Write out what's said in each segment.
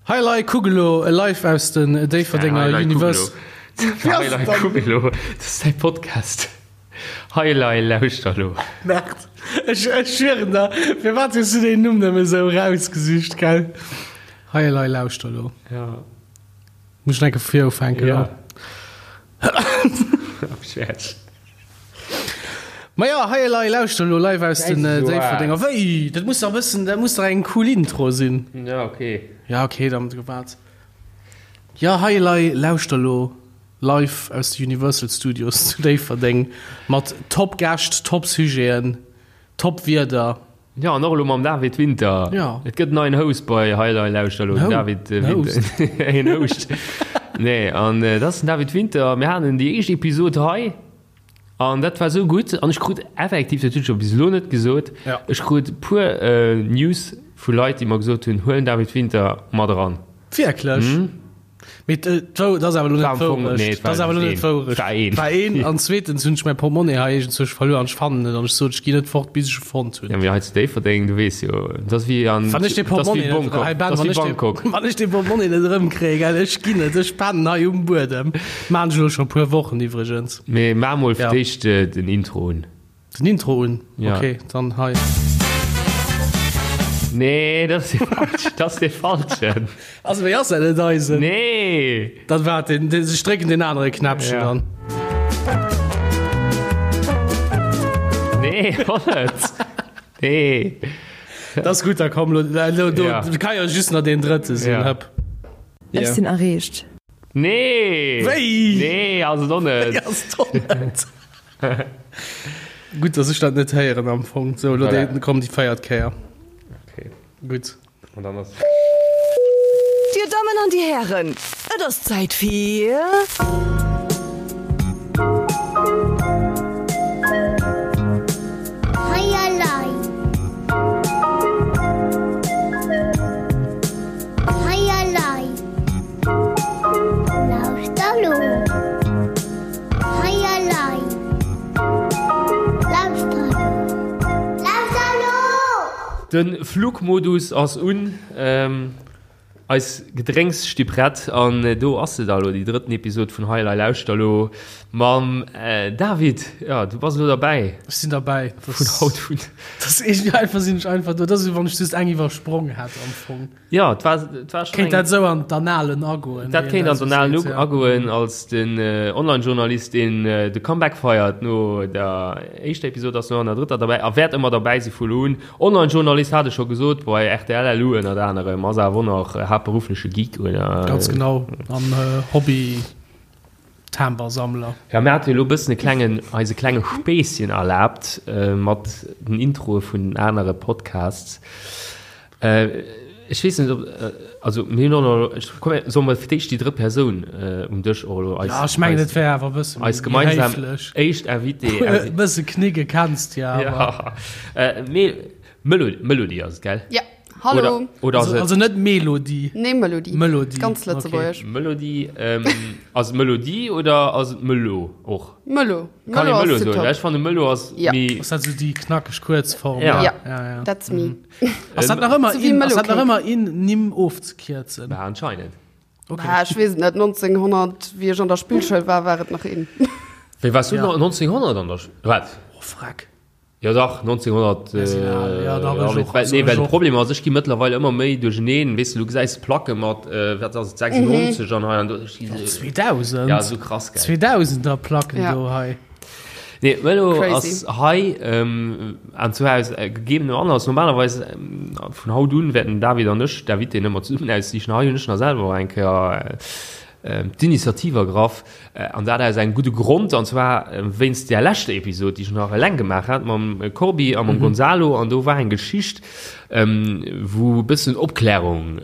Hei lei kuck elo live aus den Déifferdenger Universe. Hei lei kuck elo, dat ass däi Podcast. Hei lei lauschter elo. Merde, ech schwieren der, firwat hues du deen Numm nëmme sou erausgesicht, gell? Hei lei lauschter elo. Ja. Muss ech nach eng Kéier vu vir ufänken? Ja. Ech. Maja, hei elei, lauschter elo live aus den Déifferdenger. Wéi? Dat muss dach e bëssen, dat muss dach eng cool Intro sinn. Ja, okay. Ja, okay, dann gewaart. Ja, hei elei, lauschter elo live aus de Universal Studios zu Déifferdeng mat top Gäscht, top Sujeten, top Wieder. Ja, an och elo mam David Winter. Ja. Et gëtt en neien Host bei Hei Lei Lauschter elo, den David Winter. En Host. Nee, an dat ass den David Winter. Mir haten déi éischt Episod hei an dat war esou gutt. An ech krut effektiv, dat hunn ech jo bis elo net gesot, Ja. ech krut e puer News vu Leit, déi mer gesot hunn, huel den David Winter mat eran. Wierklech? Mee dat ass awer elo net d'Wourecht. Dat ass awer elo net d'Wourecht. War een. War een. An zweetens hunn ech mäi Portmonni hei iergendzwousch verluer an ech fannen net an ech sot, ech ginn net fort, bis ech e fonnt hunn. Ja, mee hei zu Déifferdeng, du weess jo, dat ass wéi an, Wann ech dee dat ass Portmonni wéi net, Bangkok. hei Ben, Dat ass wann wéi ech dee, Bangkok. wann ech dee Portmonni net erëmkréien, gell, ech ginn net, ech pennen hei um Buedem. Maan ech elo scho e puer Wochen iwwregens. Mee maach mol fir Ja. d'éischt den Intro un. Den Intro un? Ja. Okay, dann hei. Nee, dat ass dee falschen. Dat ass dee falschen. Also wéi ass dat net eisen? Nee. Dann waart, den, den, ech drécken den anere Knäppchen Ja. dann. Nee, och net. Nee. Dat ass gutt, da komm lo, lo, do, Ja. kann jo just nach deen drëtte sinn. Ja. Hëpp. Ech sinn erreecht. Nee. Wéi? Nee, ass et och net. Wéi ass et och net? Gutt, dass ech dat net héieren am Fong. So, lo Voilà. déi, komm déi véiert Kéier. Okay. Gutt. An dann ass. Dir Dammen an dir Hären, et ass Zäit fir. Hei elei. Hei elei. Lauschter lo. Hei elei. Lauschter lo. Lauschter lo! De Flugmodus ass un, eis Gedrénks sti prett an do ass se da lo, déi drëtten Episod vun Hei elei lauschter lo mam David. Jo, du bass elo derbäi. Ech sinn derbäi. Vun haut un. Dat ass iergendwéi einfach, sinn ech einfach do. Dat ass wéi wann ech just eng iwwersprong hätt am Fong. Ja, et war, et war schon Kéint eng, dat esou an d'Annalen agoen? Dat kéint an d'Annalen ja. agoen als den äh, Online-Journalist, deen äh, de Comeback feiert no der éischter Episod, ass no an der drëtter derbäi a wäert ëmmer derbäi si vu lo un. Online-Journalist hat ech scho gesot, bei rtl LU ënnert anerem, ass awer och nach äh, haaptberuffleche Geek oder? Ganz genau, an äh, Hobby. Timbersammler. Ja, mir hate jo elo e bëssen e klengen, eis e klenge Spéisschen erlaabt mat den Introe vun den anere Podcasts. Ech weess net, ob, also mir hunn och nach, ech, komm, solle mer fir d'éischt déi drëtt Persoun um Dësch och elo eis, Ja, ech mengen, et wär awer e bësse eis méi gemeinsam héiflech. éischt Invitée. E bësse knicke kenns de jo awer. Ja, mee Melo, Melody ass et, gell? Ja. Hallo. Oder, oder also, also net Melodie. Nee, Melodie. Melodie. Ganz lëtzebuergesch. Okay. Melodie. Ähm, ass et Melodie oder ass et Melo och? Melo. Kann ee Melo soen? Top. Ech fanne Melo ass ja. méi. Ass dat sou déi knackeg Kuerzform? Ja. Ja. ja, ja. That's me. Mhm. Ass dat nach ëmmer in, ass dat nach ëmmer in Nimm ofzekierzen? Bah, anscheinend. Okay. Bah, ech weess et net. 1900, wéi ech an der Spillschoul war, war et nach in. Wéi waars du ja. 1900 an der Sch Wat? Oh, freck. Jo dach, 1900, Mir sinn al, ja dach, ech och, well, also nee, ech well de och. Problem ass, ech gi mëttlerweil ëmmer méi duercheneen, weess de, du gesäis Placke mat, wat ass et, 96 an hei an do, ech gi Och sou, 2000, ja, sou krass, gell. 2000er Placken Ja. do hei. Nee, Vëlo Crazy. ass hei, an zwar aus gegebenem Anlass, normalerweis, vun haut un wäerten David an ech d'Invitéen ëmmer zesummen aussichen, hei hunn ech nach selwer och eng Kéier d'Initiativ ergraff, an dat aus engem gudde Grond, an zwar wéinst där leschter Episod, déi ech nach eleng gemaach hat mam Corbi a mam Gonzalo, an do war eng Geschicht, wou e bëssen Opklärung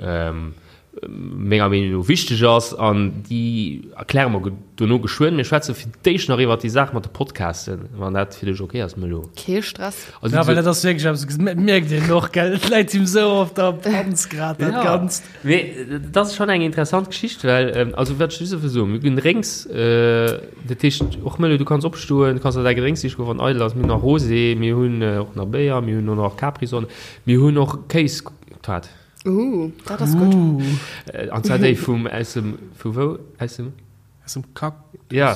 menger Meenung no wichteg ass, an déi erkläre mer dono geschwënn. Mir schwätze fir d'éischt nach iwwert déi Saach mat de Podcasten, wann dat fir dech ok ass, Melo. Kee Stress. Also, Ja, well dat ass wierklech eppes, mierkt een och, gell, et läit him sou op der Panz grad, dat Ja. Ganzt. Mee dat ass schonn eng interessant Geschicht, well, also wat ech just wëll soen, mir ginn Drénks, dat heescht och Mëlle, du kanns opstoen, du kanns der däi Gedrénks siche goen, wann eidel ass. Mir hunn nach Rosé, mir hunn och nach Béier, mir hunn och nach Capri-Sonne, mir hunn och Kéis, wat? Uh, dat ass gutt. An zwar déi vum, aus dem, vu wou? Aus dem? Aus dem Kack. Ja.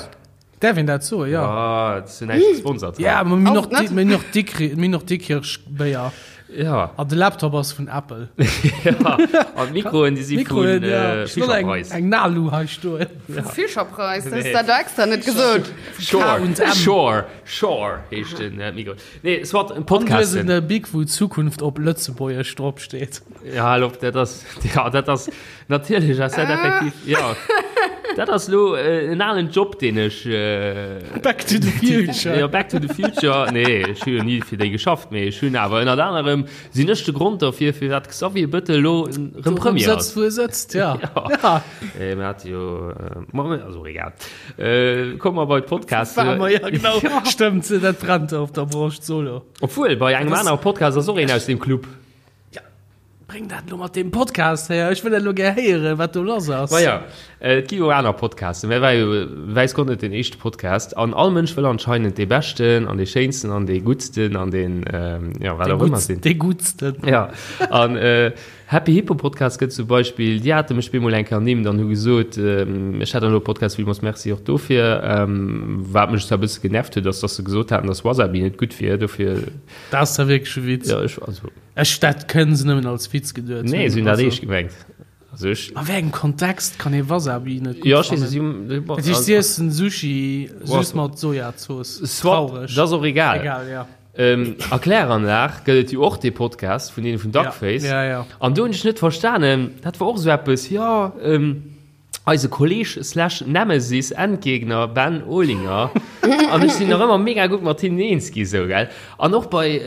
Däerf een dat soen? Ja. Ja, dat ass jo näischt gesponsert. Ja, ma mir hunn och, mir hunn och Dikrich, mir hunn och Dikkirch Béier. Ja. An de Laptop ass vun Apple. Ja, an d'Mikroen, déi si vun ja. Fischerpreis. Eng Nalu hei stoen. Ja. Fischerpreis, das nee. dat extra net gesot. Sure, Sure, Sure heescht den äh, Mikro. Nee, soit en Podcast. An du hues en Big, wou Zukunft op Lëtzebuergesch drop steet. Ja, hallo, dat ass, ja, dat ass, natierlech ass dat effektiv, ja. Dat ass lo äh, en alen Job, deen ech. Äh, Back to the future. Ja, Back to the future. Nee, ech hu jo ni fir déi geschafft, mee ech hunn awer ënnert anerem sinn ech de Grond derfir, firwat Xavier Bëttel lo rëm Premier ass. Sëtzt, wou e sëtzt, ja. Ja. ja. Äh, mir hat jo, äh, ma, also egal. Äh, komm mer bei d'Podcast. War mer, ja, genau. Stëmmt, dat brennt op der Broscht solo. Obwuel, bei engem anere Podcast ass och een aus dem Club. Bréng dat elo mat deem Podcast héier, ech wëll dat elo gär héieren, wat do lass ass. Ma ja, et gi jo aner Podcasten. Mä war jo wäiss Gott net deen éischte Podcast. An all Mënsch wëll anscheinend dee beschten an dee schéinsten an dee guttsten an deen, jo, wat och ëmmer sinn. Dee guttsten. Ja, an Happy Hippo Podcast gëtt zum Beispill, déi hate mech bemol eng Kéier ernimmt an hu gesot, ech hätt elo e Podcast, villmools Merci och dofir. Wat mech zwar e bësse genervt huet, ass, dass se gesot haten, dass Wasabi net gutt wier, dofir. Dat ass da wierklech e Witz. Ja, ech, also. Ech, dat kënnen se nëmmen als Witz geduet hunn. Nee, se hunn dat eescht gemengt. Also ech. A wéi engem Kontext kann ee Wasabi net gutt Ja, ech weess, fannen? si hunn. Dat heescht, si iessen Sushi just mat Sojazooss. Soit, Traureg. dat ass och egal. Egal, ja. A Kläranlag gëtt et jo och dee Podcast vun deene vun Duckface. Ja, ja, ja. An do hunn ech net verstanen, dat war och esou eppes, jo, Eise Kolleg slash Nemesis, Endgegner, Ben Olinger an ech sinn nach ëmmer mega gutt mat hinnen eens gi sou, gell. An och bei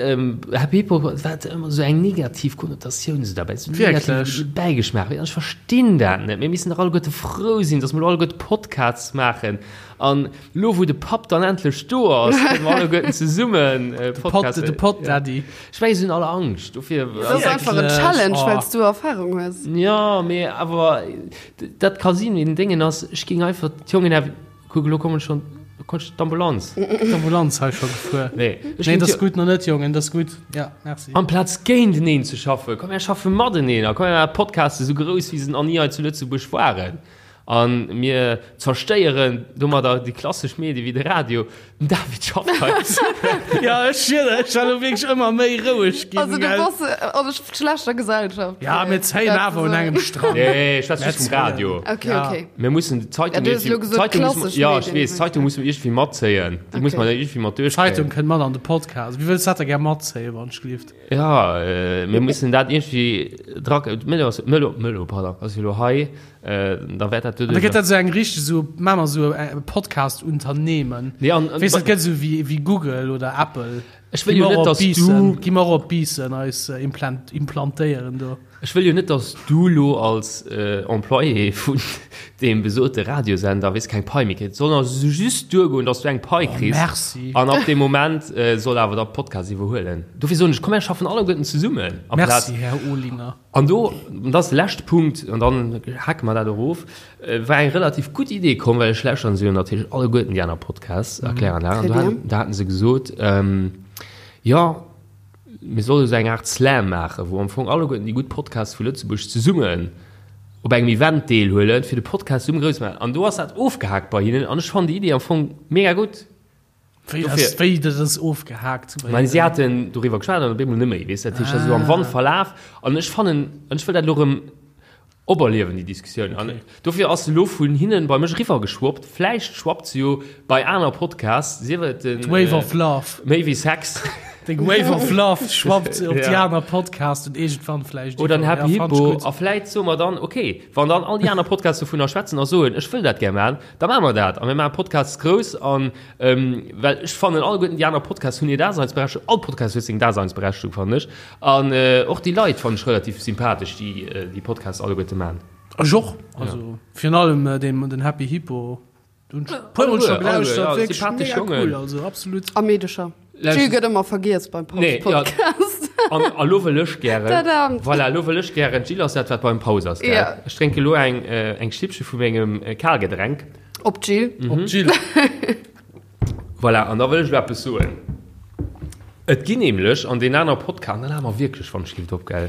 Happy Hippo war et ëmmer sou eng negativ Konnotatioun sou derbäi, sou negative Bäigeschmaach. An ech verstinn dat net. Mir missten dach alleguerte frou sinn, datt mer elo alleguerte Podcasts maachen. An elo wou de Papp dann endlech do ass, kënne mer alleguerten zesummen Podcasts. De Pod Daddy. Ech mengen, se hunn alle Angscht dofir. Dat ass einfach en Challenge, well s du Erfarung hues. Jo, mee awer Dat ka sinn, mee den Déngen ass, ech géing einfach d'Jongen awer, kuck elo kommen schonn, kommt d'Ambulanz. D'Ambulanz hei scho gefuer. Nee, ech Nee, géing dat ass d'Jo- gutt, nach net, Jongen, dat ass gutt. Ja, merci. Amplaz géinteneen ze schaffen, komm mir schaffe mateneen a komm mir maachen Podcaste sou grouss wéi se nach ni hei zu Lëtzebuerg waren. A mir zerstéieren domadder déi klassesch Medie wéi de Radio. Den David schafft hei. Ja, ech schwöre, ech war lo wierklech ëmmer méi roueg ginn. Also du gell? bass an schlechter Gesellschaft. Ja, mir zéien awer un engem Strang. Nee, ech schwätze just vum Radio. Okay, Ja. okay. Mir mussen d'Zeitung Ja, du hues elo iergendwéi- gesot, d'Zeitung musse mer- klassesch ja, ech Medien. weess, d'Zeitung musse mer iergendwéi matzéien. Déi muss Okay. mer iergendwéi mat duerchkréien. D'Zeitung kënnt mat an de Podcast. Wie wëlls dat da gär matzéien, wann ech gelift? Ja, äh, mir mussen dat iergendwéi dra. D'Mëllo ass, Mëllo, Mëllo, pardon, ass jo elo hei. Äh, da wäert dat An da gëtt dat esou eng richteg esou, maache mer esou e Podcast-Unternehmen. Nee, an, an, Weess, dat gëtt esou wéi, wéi Google oder Apple. Ech wëll jo net, dass du. Gi mer och op Biissen eis äh, implant, implantéieren do. Ech wëll jo net, dass du lo als äh, Employé vun deem besote Radiosender, weess, keng Pai méi kriss. Et soll also just duergoen, dass du eng Pai kriss. Oh, merci. An ab deem Moment äh, soll awer da Podcast iwwerhuelen. Dofir soen ech, komm, mir schaffen alleguerten zesummen. Merci, Här Olinger. An do, an dat ass de leschte Punkt, an dann hake mer dat och of, war eng relativ gutt Idee komm, well ech lauschteren se jo natierlech alleguerten déi aner Podcasts, Erkläranlag, an do haten, do haten se gesot, jo, mir solle esou eng Aart Slam maachen, wou am Fong alleguerten déi gutt Podcasts vu Lëtzebuerg zesummen op engem Event deelhuelen, fir de Podcast zesumme grouss ze maachen. An do ass dat ofgehaakt bei hinnen an ech fannen déi Idee am Fong mega gutt. Wéi ass, wéi dat ass ofgehaakt? Mä si haten doriwwer geschwat an op eemol net méi, weess de. Dat heescht, dat ass esou am Wand verlaf. An ech fannen, an ech wëll dat elo erëm operliewen, déi Diskussioun. An dofir ass se elo vun hinnen bei mech eriwwergeschwappt. Vläicht schwappt se jo bei aner Podcasts, sief et den. D'Wave of Love. Méi wéi Sex. Deng Wave of Love schwappt op déi aner Podcasts und iergendwann vläicht. Oder den Happy Hippo. A vläicht soe mer dann, okay, wann dann all déi aner Podcasts dovunner schwätzen a soen, ech wëll dat gär maachen, Da maache mer dat a mir maache Podcasts grouss an, well ech fannen alleguerten déi aner Podcasts hunn hir Daseinsberechtegung, all Podcast huet seng Daseinsberechtegung fannen ech an och déi Leit fannen ech relativ sympathesch déi déi Podcasts alleguerte maachen. Ech och, also virun allem deen den Happy Hippo, do hunn ech e puermol scho gelauschtert, wierklech mega cool, also absolut. A Meedecher. D'Jill gëtt ëmmer vergiess beim Nee, ja. Paus-Podcast. An a lo wëll ech gären. Tadam. Voilà, lo wëll ech gären. D'Jill ass dat, wat beim Paus ass, gell? Ja. Ech drénke lo eng, äh, eng Schlippche vu mengem äh, Kalgedränk. Op d'Jill. Mhm. Op d'Jill. Voilà, an da wëll ech lo eppes soen. Et ginn nämlech an den aner Podcast, an da lache mer wierklech, wann ech giff op, gell?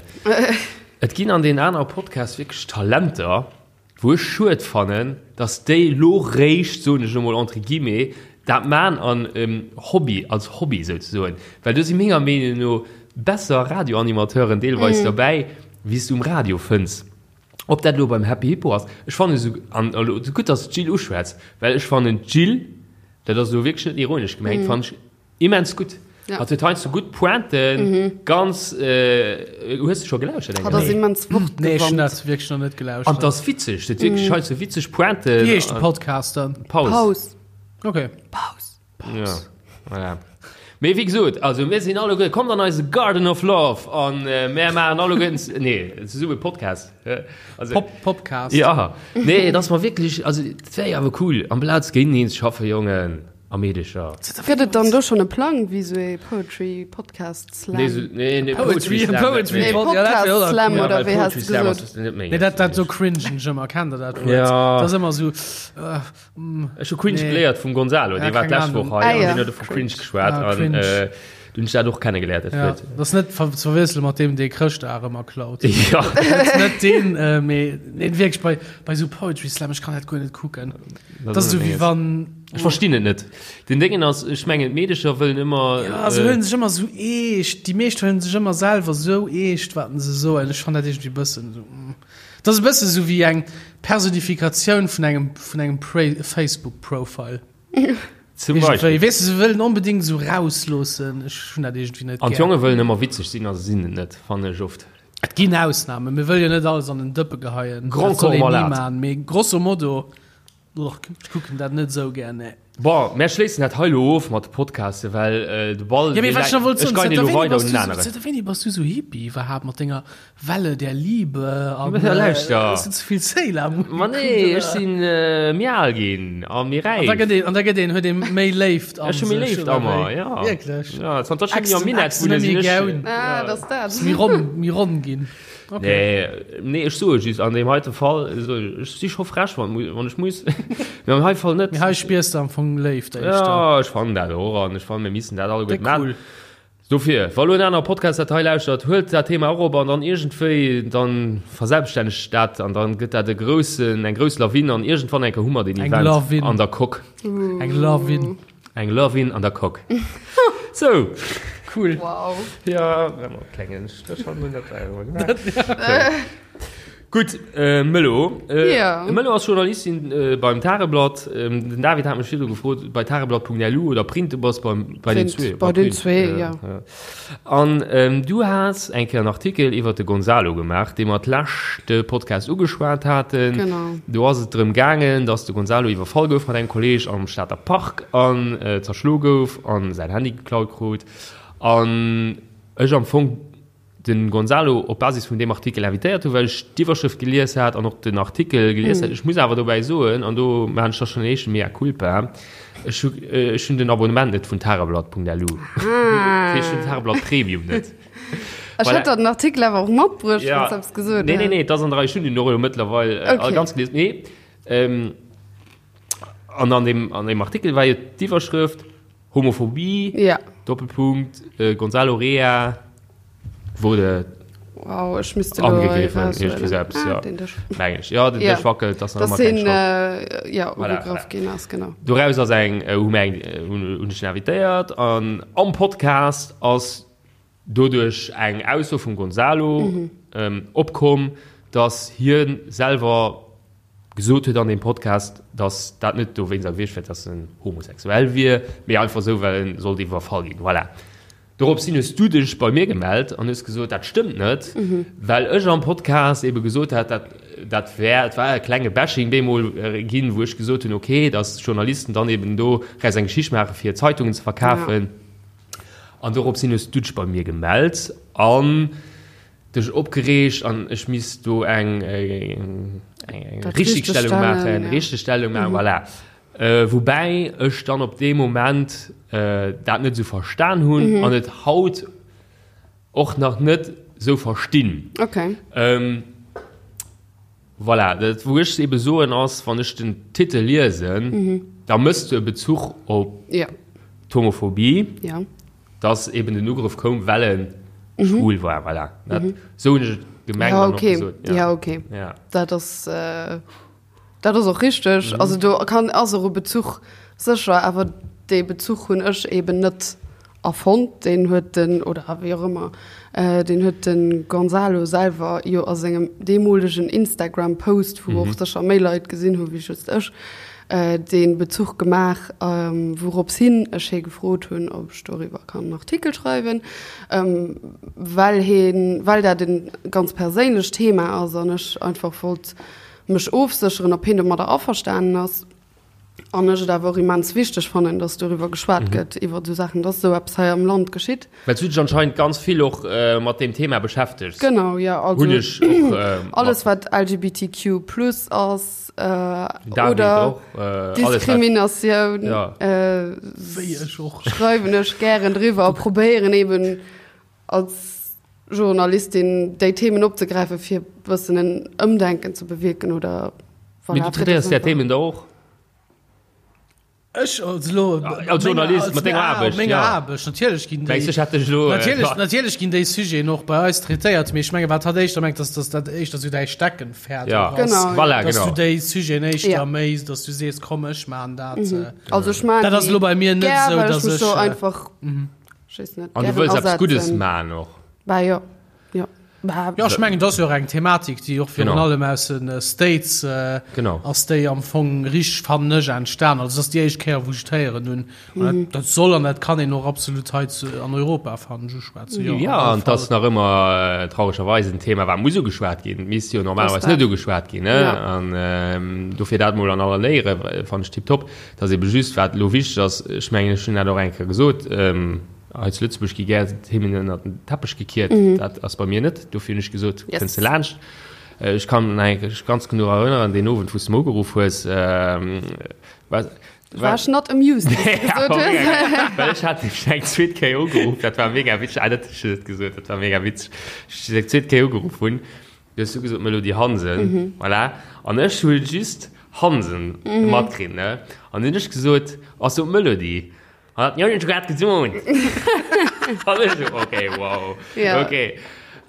Et ginn an deenen anere Podcasts wierklech Talenter, wou ech schued fannen, dass déi lo réischt, soen ech elo mol entre guillemets, dat man an Hobby, als Hobby souzesoen. Well do si menger Meenung no besser Radioanimateuren deelweis derbäi, wéi s du um Radio fënns. Ob dat elo beim Happy Hippo ass, ech fannen esou, an elo gutt, dass s d'Jill uschwätz, well ech fannen d'Jill, dat ass elo wierklech net ironesch gemengt, fannen ech immens gutt. Ja. Hatt huet heiansdo gutt Pointen, ganz, hues de scho gelauschtert eng Hatt ass Kéier? immens Nee, ech hunn wortgewandt. dat wierklech nach net An 't gelauschtert. ass witzeg, huet wierklech heiansdo witzeg Pointen. Wéi heescht de Podcast dann? Paus. Paus. Okay. Paus. Ja, voilà. Mee wéi gesot, also mir sinn alleguer, kommt an eise Garden of Love an mär maachen alleguerten, nee, zesumme Podcast. Also, Pop, Popcast. Ja, nee, et ass mer wierklech, also dat wär jo awer cool, amplaz géinteneen ze schaffen, Jongen a Meedecher. Gëtt et dann do schonn e Plang, wéi sou ee Poetry Podcast Slam? Nee, sou, nee, nee, Poetry, Slam, Poetry, nee. Nee, Pod- ja, dat wär Podcast och Slam cool. Ja, oder well wéi has Poetry de Slam gesot? ass net méi. Nee, dat, dat, do cringen ech ëmmer, kennt der dat Wuert? Ja. Dat ass ëmmer sou, äh, Ech hu Cringe Nee. geléiert vum Gonzalo, Ja, dee war keng d'lescht Ahnung. Woch hei Ah, an ja. deen huet vu Cringe geschwat Ah, an Cringe. äh, du hunn ech dat och kennegeléiert, dat Ja, Wuert. dat ass net ver ze verwiessele mat deem, dee Chrëschtdag ëmmer klaut. Ja. Dat ass net deen, äh, mee nee, wierklech bei, bei sou Poetry Slam, ech kann dat guer net kucken. Dat ass esou wéi wann. Ech verstinn et net. Den Déngen ass, ech mengen d'Meedecher wëllen ëmmer. Ja, se huelen sech ëmmer sou eescht. Déi meescht huelen sech ëmmer selwer sou eescht, wat se soen. Ech fannen dat iergendwéi e bëssen esou. Dat ass e bësse sou wéi eng Personifikatioun vun engem, vun engem Facebook Profile. Zum Beispill. Weess de, se wëllen onbedéngt sou rausloossen. Ech hunn dat iergendwéi net An gär. d'Jonge wëllen ëmmer witzeg sinn a se sinn et net, fannen ech oft. Et ginn Ausnamen. Mir wëlle jo net alles an den Dëppe geheien. Grand Dat soll Corps een ni malade. maachen. Mee grosso modo. Och, ech kucken dat net esou gär, nee. Bon, mär schléissen dat hei elo of mat de Podcasten, well de Ball, Ja, mee wat ech nach wollt ech soen, geien zënter elo wéini weider bass un du en sou, aneren. zënter wéini bass du sou Hippie iwwerhaapt mat denger Welle der Liebe an Ja, lauschter. hues du ze vill Sailor Moon Ma gekuckt, nee, ech oder? sinn méi al ginn a méi An da räif. gëtt een, an da gëtt een, huet ee méi Léift an Ech hu méi sech, Léift oder a mer, wéi? ja. Wierklech? Ja, zanter ech net méi am Ächzen, Minett Ächzen wunne, net sinn méi ech. goun. Ah, dat ass dat. Méi ronn, méi ronn ginn. Okay. Nee, nee, ech soe just, an deem heite Fall, so, ech si scho frech, wann, wann ech muss. Mee am hei Fall net. Mee hei spiers de am Fong Léift éischter. Ja, ech fannen dat och an ech fannen, mir missen dat alleguer Déck man. cool. Dofir, wa lo en anere Podcast dat hei lauschtert, huelt dat Thema och op an dann iergendwéi, dann verselbststännegt dat an dann gëtt dat e groussen, eng grouss Lawin an iergendwann eng Kéier hu mer deen Eng Event Lawin. an der Coque. Eng Lawin. Eng Lawin an der Coque. Sou. Cool. Wow. Ja, klengen Stréch hannendrun, dat war jo gemaach. Gutt, äh, Mëllo. Äh, Ja. Mëllo ass Journalistin äh, beim Tageblatt. Ähm, den David hat mech virdru gefrot, bei tageblatt.lu oder Print, du bass beim, bei den Print, zwee. bei den zwee, ja. An ähm, du has eng Kéier en Artikel iwwer de Gonzalo gemaach, dee mer d'leschte Podcast ugeschwat haten. Genau. Do ass et drëm gaangen, dass de Gonzalo iwwerfall gouf mat engem Kolleeg am Stater Park an äh, zerschlo gouf an säin Handy geklaut krut. An ech am Fong den Gonzalo op Basis vun deem Artikel invitéiert hu, well ech d'Iwwerschrëft gelies hat an och den Artikel gelies hat. Ech muss awer dobäi soen, an do maachen ech da schonn en éischte Mea culpa, ech hu ech hunn den Abonnement net vun tageblatt.lu. Dat heescht, ech hunn Tageblatt Premium net. Ech hätt der den Artikel awer och matbruecht, wann s de eppes gesot Nee, nee, häss. nee, et ass an der Rei. Ech hunn den och elo mëttlerweil all ganz gelies. Nee, an an deem, an deem Artikel war jo d'Iwwerschrëft, Homophobie, ja. Doppelpunkt, äh, Gonzalo Rea wurde wow, ech müsste angegriffen. Selbst, ah, ja. Den Dësch. Meng ich. Ja, den ja. Dësch wackelt, das dass den, äh, ja, voilà, ugegraff ginn ass, genau. Doraus ass eng, äh, hu eng, äh, hunn, hunn ech invitéiert an am Podcast ass doduerch eng Ausso vum Gonzalo mhm. ähm, opkomm, dass hien selwer gesot huet an deem Podcast, dass dat net dowéinster gewiescht wär, dass en homosexuell wier, mee einfach esou, well en sollt iwwerfall ginn. Voilà. Dorops hin hues du dech bei mir gemellt an hues gesot, dat stëmmt net, well ech am Podcast ebe gesot hat, dat, dat wär, et war e klenge Bashing bemol ginn, wou ech gesot hunn, okay, dass Journalisten dann eben do raus eng Geschicht maache fir Zeitungen ze verkafen. An dorops hin hues du dech bei mir gemellt an dech opgereegt an ech misst do eng eng Richtigstellung maachen, ja. Richtigstellung maachen, mhm. voilà. Äh, woubäi ech dann op deem Moment äh, dat net sou verstan hunn mhm. an et haut och nach net sou verstinn. Okay. Ähm, voilà, dat wou ech ebe soen ass, wann ech den Titel liesen, mhm. da mëss du e Bezuch op ja. d'Homophobie. Ja. Dass eben den Ugrëff koum, well en schwul war. Voilà. Dat, sou hunn ech et. Gemengt Ja, an och okay. gesot. Ja, okay. Ja. Dat ass, äh, dat ass och richteg. Mhm. Also do kann, ass och e Bezuch sécher, awer dee Bezuch hunn ech eben net erfonnt. Deen huet den, oder wéi och ëmmer, äh, deen huet de Gonzalo selwer jo a sengem deemolegen Instagram-Post, wou och sécher méi Leit gesinn hu wéi just ech, dee Bezuch gemaach, wourops hin ech hie gefrot hunn, ob ech doriwwer kann en Artikel schreiwen, well hien, well dat e ganz perséinlecht Thema ass an ech einfach wollt mech ofsécheren, ob hien domadder averstanen ass. An ech et awer och immens wichteg fannen, dass doriwwer geschwat gëtt, iwwer esou Saachen, dass esou eppes hei am Land geschitt. Well s du dech anscheinend ganz vill och mat deem Thema beschäftegs. Genau, jo. Also Hunn ech och alles, wat LGBTQ plus ass David oder och, alles wat Diskriminatioun, Ja. Wéi ech och. schreiwen ech gären driwwer a probéieren eben als Journalistin déi Themen opzegräifen, fir e bëssen en Ëmdenken ze bewierken oder Mee voilà, du fir traitéiers dass där einfach. Themen da och? Ech als elo Als Journalist mat denger Aarbecht, menger ja. Aarbecht natierlech ginn déi Mengs du, ech hätt dech elo, äh, natierlech natierlech ginn déi Sujeten och bei eis traitéiert, mee ech menge wat hatt éischter mengt, dass dass dat éischter sou däi Steckenpferd Ja. och ass, Genau, ja. Voilà, dass genau. du déi Sujeten éischter Ja. méi, dass du sees komm ech maachen dat. äh, Also ech maan Dat ass déi elo bei mir net gär, sou, well ech dass mech ech, do äh, einfach, ech weess net, An du gären wëlls eppes Guddes asetzen. maachen och. Bah jo, jo. Bah, Jo, ech mengen, dat ass jo och eng Thematik, déi och virun Genau. allem aus de States äh, Genau. ass déi am Fong richteg, fannen ech, entstan. Also, dat ass déi éischt Kéier, wou ech et héieren hunn. An dat, dat soll an dat kann een och absolut hei zu, an Europa, fannen ech, uschwätzen. Jo, Ja, op alle an et ass Fall. nach ëmmer äh, trauregerweis en Thema, wat muss ugeschwat ginn. Et misst jo normalerweis Das net ugeschwat ginn. Ne? Ja. An ähm, dofir dat mol an aller Léiere fannen ech tiptop. Dat ass ebe just, wat elo wichteg ass, ech mengen, ech hunn dat och eng Kéier gesot, ähm, Hei zu Lëtzebuerg gi gär Themen ënnert den Teppech gekiert. Dat ass bei mir net. Dofir hunn ech gesot, Yes. kënns de laanscht. Ech kann mech ganz genau erënneren, deen Owend, wou s de mer ugeruff hues, war, War ech not amused, wéi s de gesot hues. Well ech hat dech eng zweet Kéier ugeruff, dat war mega witzeg. Ah, dat hu ech net gesot, dat war mega witzeg. Ech dech eng zweet Kéier ugeruff hunn, du hues du gesot, Melody Hansen, voilà. An ech hu just Hansen matkritt, ne? An dunn hunn ech gesot, Ass do d'Melody? Hat jo net grad gesot. An ech so, okay, wow. Ja. Okay.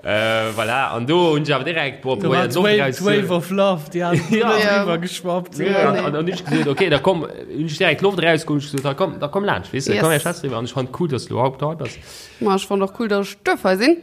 Äh, voilà. An do hunn ech awer direkt, boah, Do war probéiert d'Loft d'Wave, raus d'Wave of Love, déi hat Ja. Ja. driwwer geschwappt. Ja, nee. an, an hunn ech gesot, okay, da komm, hunn ech direkt d'Loft rausgeholl, hunn ech gesot, da komm, da komm laanscht, weess de, Yes. komm, ech schwätze driwwer. An ech fand cool, dass du überhaupt hei bass. Ma ech fand och cool, dass ech duerf hei sinn.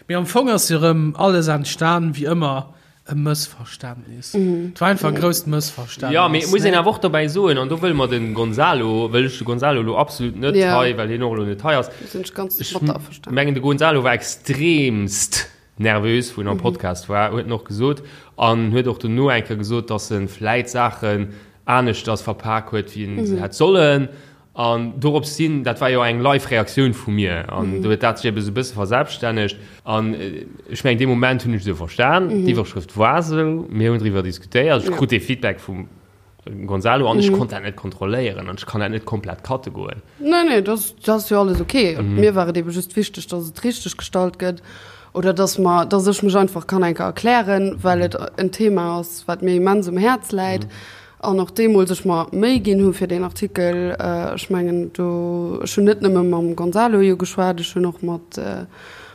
Mee am Fong ass jo rëm alles entstan, wéi ëmmer, E Mëssverständnis. Et war einfach e grousst Mëssverständnis. Ja, mee et muss een awer och dobäi soen, an do wëlle mer de Gonzalo, wëll ech de Gonzalo elo absolut net Ja. hei, well hien och elo net hei ass. Do sinn ech ganz Ech mat der averstanen. mengen, de Gonzalo war extremst nervös, wou en am Podcast war, huet en och gesot. An huet och dono eng Kéier gesot, dass e vläit Saachen aneschters verpak huet, wéi en se hätt sollen. An dorops hin, dat war jo eng live Reaktioun vu mir, an do huet dat sech ebe sou e bësse verselbststännegt. An ech mengen, dee Moment hunn ech esou verstan, d'Iwwerschrëft war esou, mir hunn driwwer diskutéiert, ech krut dee Feedback vum Gonzalo an ech konnt dat net kontrolléieren an ech kann dat net komplett cutte goen. Nee, nee, dat ass jo alles ok. Mir war et ebe just wichteg, datt et richteg gestallt gëtt oder datt mer, datt ech mech einfach kann eng Kéier erklären, well et en Thema ass, wat mir immens um Häerz läit. An och deemools ech mer Méi ginn hu fir deen Artikel, ech mengen do, ech hunn net nëmme mam Gonzalo jo geschwat, ech hunn och mat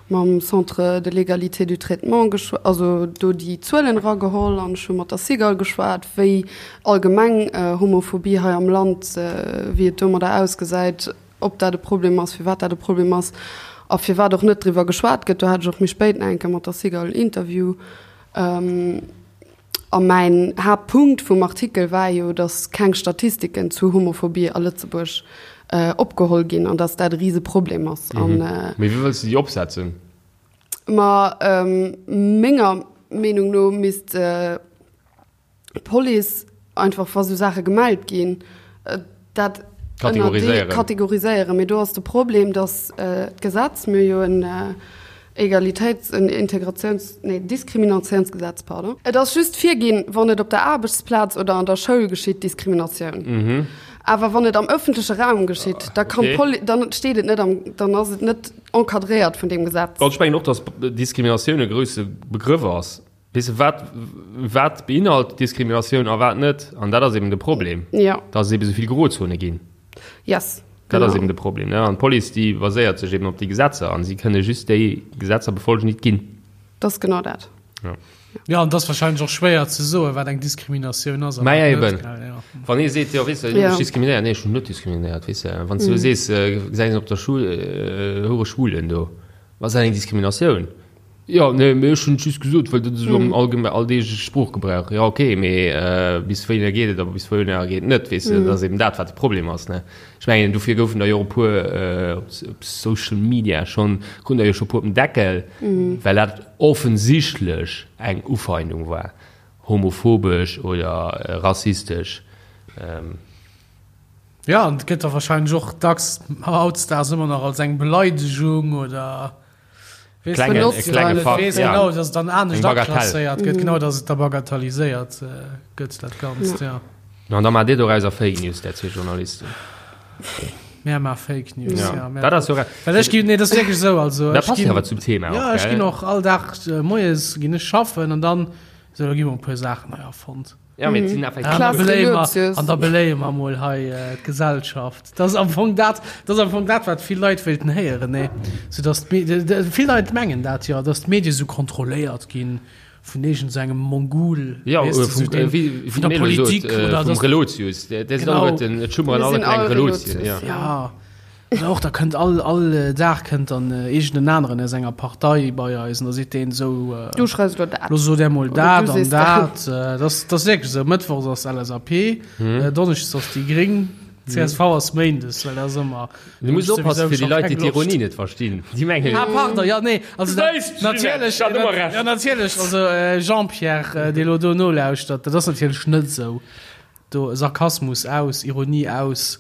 mam Centre de l'égalité du traitement geschw-, also do déi Zuelen erageholl an ech hu mat der Cigale geschwat, wéi allgemeng Homophobie hei am Land, wéi et domadder ausgesäit, ob dat e Problem ass, firwat dat e Problem ass a firwat och net driwwer geschwat gëtt. Do hat ech och méi spéit nach eng Kéier mat der Cigale en Interview. A mäin Haaptpunkt vum Artikel war jo, datt keng Statistiken zu Homophobie a Lëtzebuerg opgeholl ginn an datt dat e Riseproblem ass. Mee wéi wëlls de déi opsetzen? Ma menger Meenung no misst d'Police einfach, wa sou Saache gemellt ginn, dat Kategoriséieren. Kategoriséieren. Mee do ass de Problem, datt d'Gesetz, mir hu jo en Egalitéits-, en Integratiouns-, nee, Diskriminatiounsgesetz, pardon. Et ass just virginn, wann et op der Aarbechtsplaz oder an der Schoul geschitt, Diskriminatioun. Awer wann et am ëffentleche Raum geschitt, da kann d'Poli-, dann steet et net am, dann ass et net encadréiert vun deem Gesetz. Ech mengen och, datt Diskriminatioun e grousse Begrëff ass. Weess de, wat, wat beinhalt Diskriminatioun a wat net? An dat ass eben de Problem, ja. dass et eben esou vill Grozone ginn. Yes, Dat genau. ass eben de Problem. Ne? An d'Police, déi baséiert sech eben op déi Gesetzer an si kënne just déi Gesetzer befolgen, déi et ginn. Dat ass genau dat. Ja. Ja, an dat ass wahrscheinlech och schwéier ze soen, wat eng Diskriminatioun ass. Mä ja, eben. Wann ee seet, jo, weess de, du hues diskriminéiert. Nee, ech hunn net diskriminéiert, weess de. Wann s du sees, gesäis een op der Schul, hure Schwulen do, ass dat eng Diskriminatioun? Jo, nee, mee ech hunn et just gesot, well dat esou am allgeme alldeegleche Sproochgebrauch. Jo, okay, mee bis wéinär geet et a bis wouhinner geet et net, weess de. Dat ass eben dat, wat de Problem ass, ne. Ech mengen, dofir goufen der jo och e puer op Social Media schonn, kruten der jo scho e puer op den Deckel, well dat offensichtlech eng Ufeindung war, homophobesch oder rassistesch. Jo, an et gëtt da wahrscheinlech och dacks hautdesdaags ëmmer nach als eng Beleidegung oder Weess Klenge, benotzt, e klenge well et Fakt, weess ja. genau, dass et dann anescht Eng Bagatell. aklasséiert gëtt, genau, dass et da bagatelliséiert gëtt, dat Ganzt, ja. No, an da maacht Dir dorauser Fake News, där zwee Journalisten. Mär maache Fake News, Ja. ja. Mär, Dat ass jo re- well ech ginn, nee, dat ass wierklech esou, also Dat ech passt jo ginn, awer zum Thema och, ja, ech gell? ginn och all Dag moies ginn ech schaffen an dann, esou, da gi mer e puer Saachen hei erfonnt. Ja, mee et sinn effektiv. An da Klaas beléie mer, Relotius. an da beléie mer mol hei d'Gesellschaft. Dat ass am Fong dat, dat ass am Fong dat, wat vill Leit wéilten héieren, nee? Sou dass d'Me-, vill Leit mengen dat jo, dass d'Medie sou kontrolléiert ginn vun iergend sou engem Mongol, Ja, weess de, vum, sou deen, wéi, vun der wéi d'Melo sot, Politik oder vum dass. Relotius. Där sinn Genau. alleguerten, et schummeren Mir alle sinn kleng all Relotien, Relotius, ja. Ja. Oder och, da kënnt all, all Dag kënnt dann iergend en aneren aus enger Partei bei eis an da seet deen esou, Du schreifs elo dat. Lo sot där mol Oder dat du an sees dat. Dat ass, dat ass wierklech esou. Mëttwochs ass LSAP, Donneschdes ass déi Gréng, csv ass Méindes, well dat ass ëmmer. Du muss oppassen fir déi Leit, déi d'Ironie net verstinn. Déi mengen. Ah, pardon, jo, nee, also dat, Wéisst, natierlech, Ginette, hat ëmmer Recht. jo, natierlech, also Jean-Pierre, dee lo do nolauschtert, dat ass natierlech net esou. Do Sarkasmus aus, Ironie aus.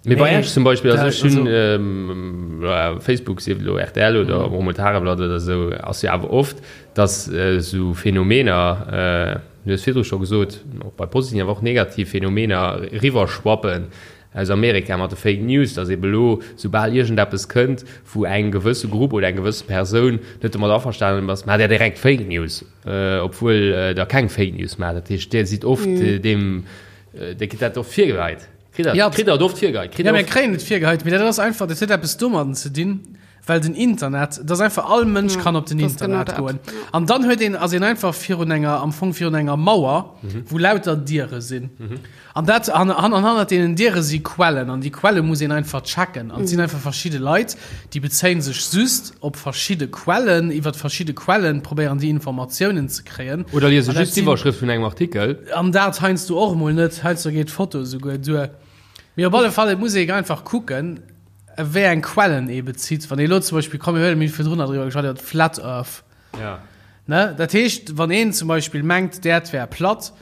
Mee bei Nee, Esch zum Beispill, also da, ech hunn also. Facebook, sief et elo rtl oder och emol d'Tageblatt oder esou, ass jo awer oft, datt esou Phänomener, du hues virdru scho gesot, och bei positiven, awer och negativ Phänomener eriwwerschwappen aus Amerika mat de Fake News, datt ebe elo, soubal iergendeppes kënnt, wou eng gewësse Grupp oder eng gewësse Persoun net domat averstanen ass, maacht där direkt Fake News. Obwuel der keng Fake News maacht. Dat heescht, Dir sidd oft deem, Dir kritt dat oft virgeheit. Kritt der, Ja. kritt der et oft virgeheit? Kritt Ja, der mir oft. kréien et virgeheit, mee dat ass einfach, dat huet eppes domadden ze dinn, well den Internet, dat ass einfach, all Mënsch kann op den dat ass genau Internet dat. goen. An dann huet een, ass een einfach virun enger, am Fong virun enger Mauer, wou lauter Diere sinn. An dat, an, an, an hannert deenen Diere si Quellen, an déi Quelle muss een einfach checken. An et sinn einfach verschidde Leit, déi bezéien sech just op verschidde Quellen, iwwert verschidde Quellen probéieren déi Informatiounen ze kréien. Oder liese An dat just sinn- d'Iwwerschrëft vun engem Artikel. An dat heiansdo och emol net, heiansdo geet d'Foto esouguer duer. Mee op alle Fall, et muss ee einfach kucken, wéi eng Quellen ee bezitt. Wann ee elo zum Beispill, komm mir huelen, mir hu virdrun nach driwwer geschwat, iwwer d'Flat Earth. Ja. Ne? Dat heescht, wann een zum Beispill mengt, d'Äerd wär platt,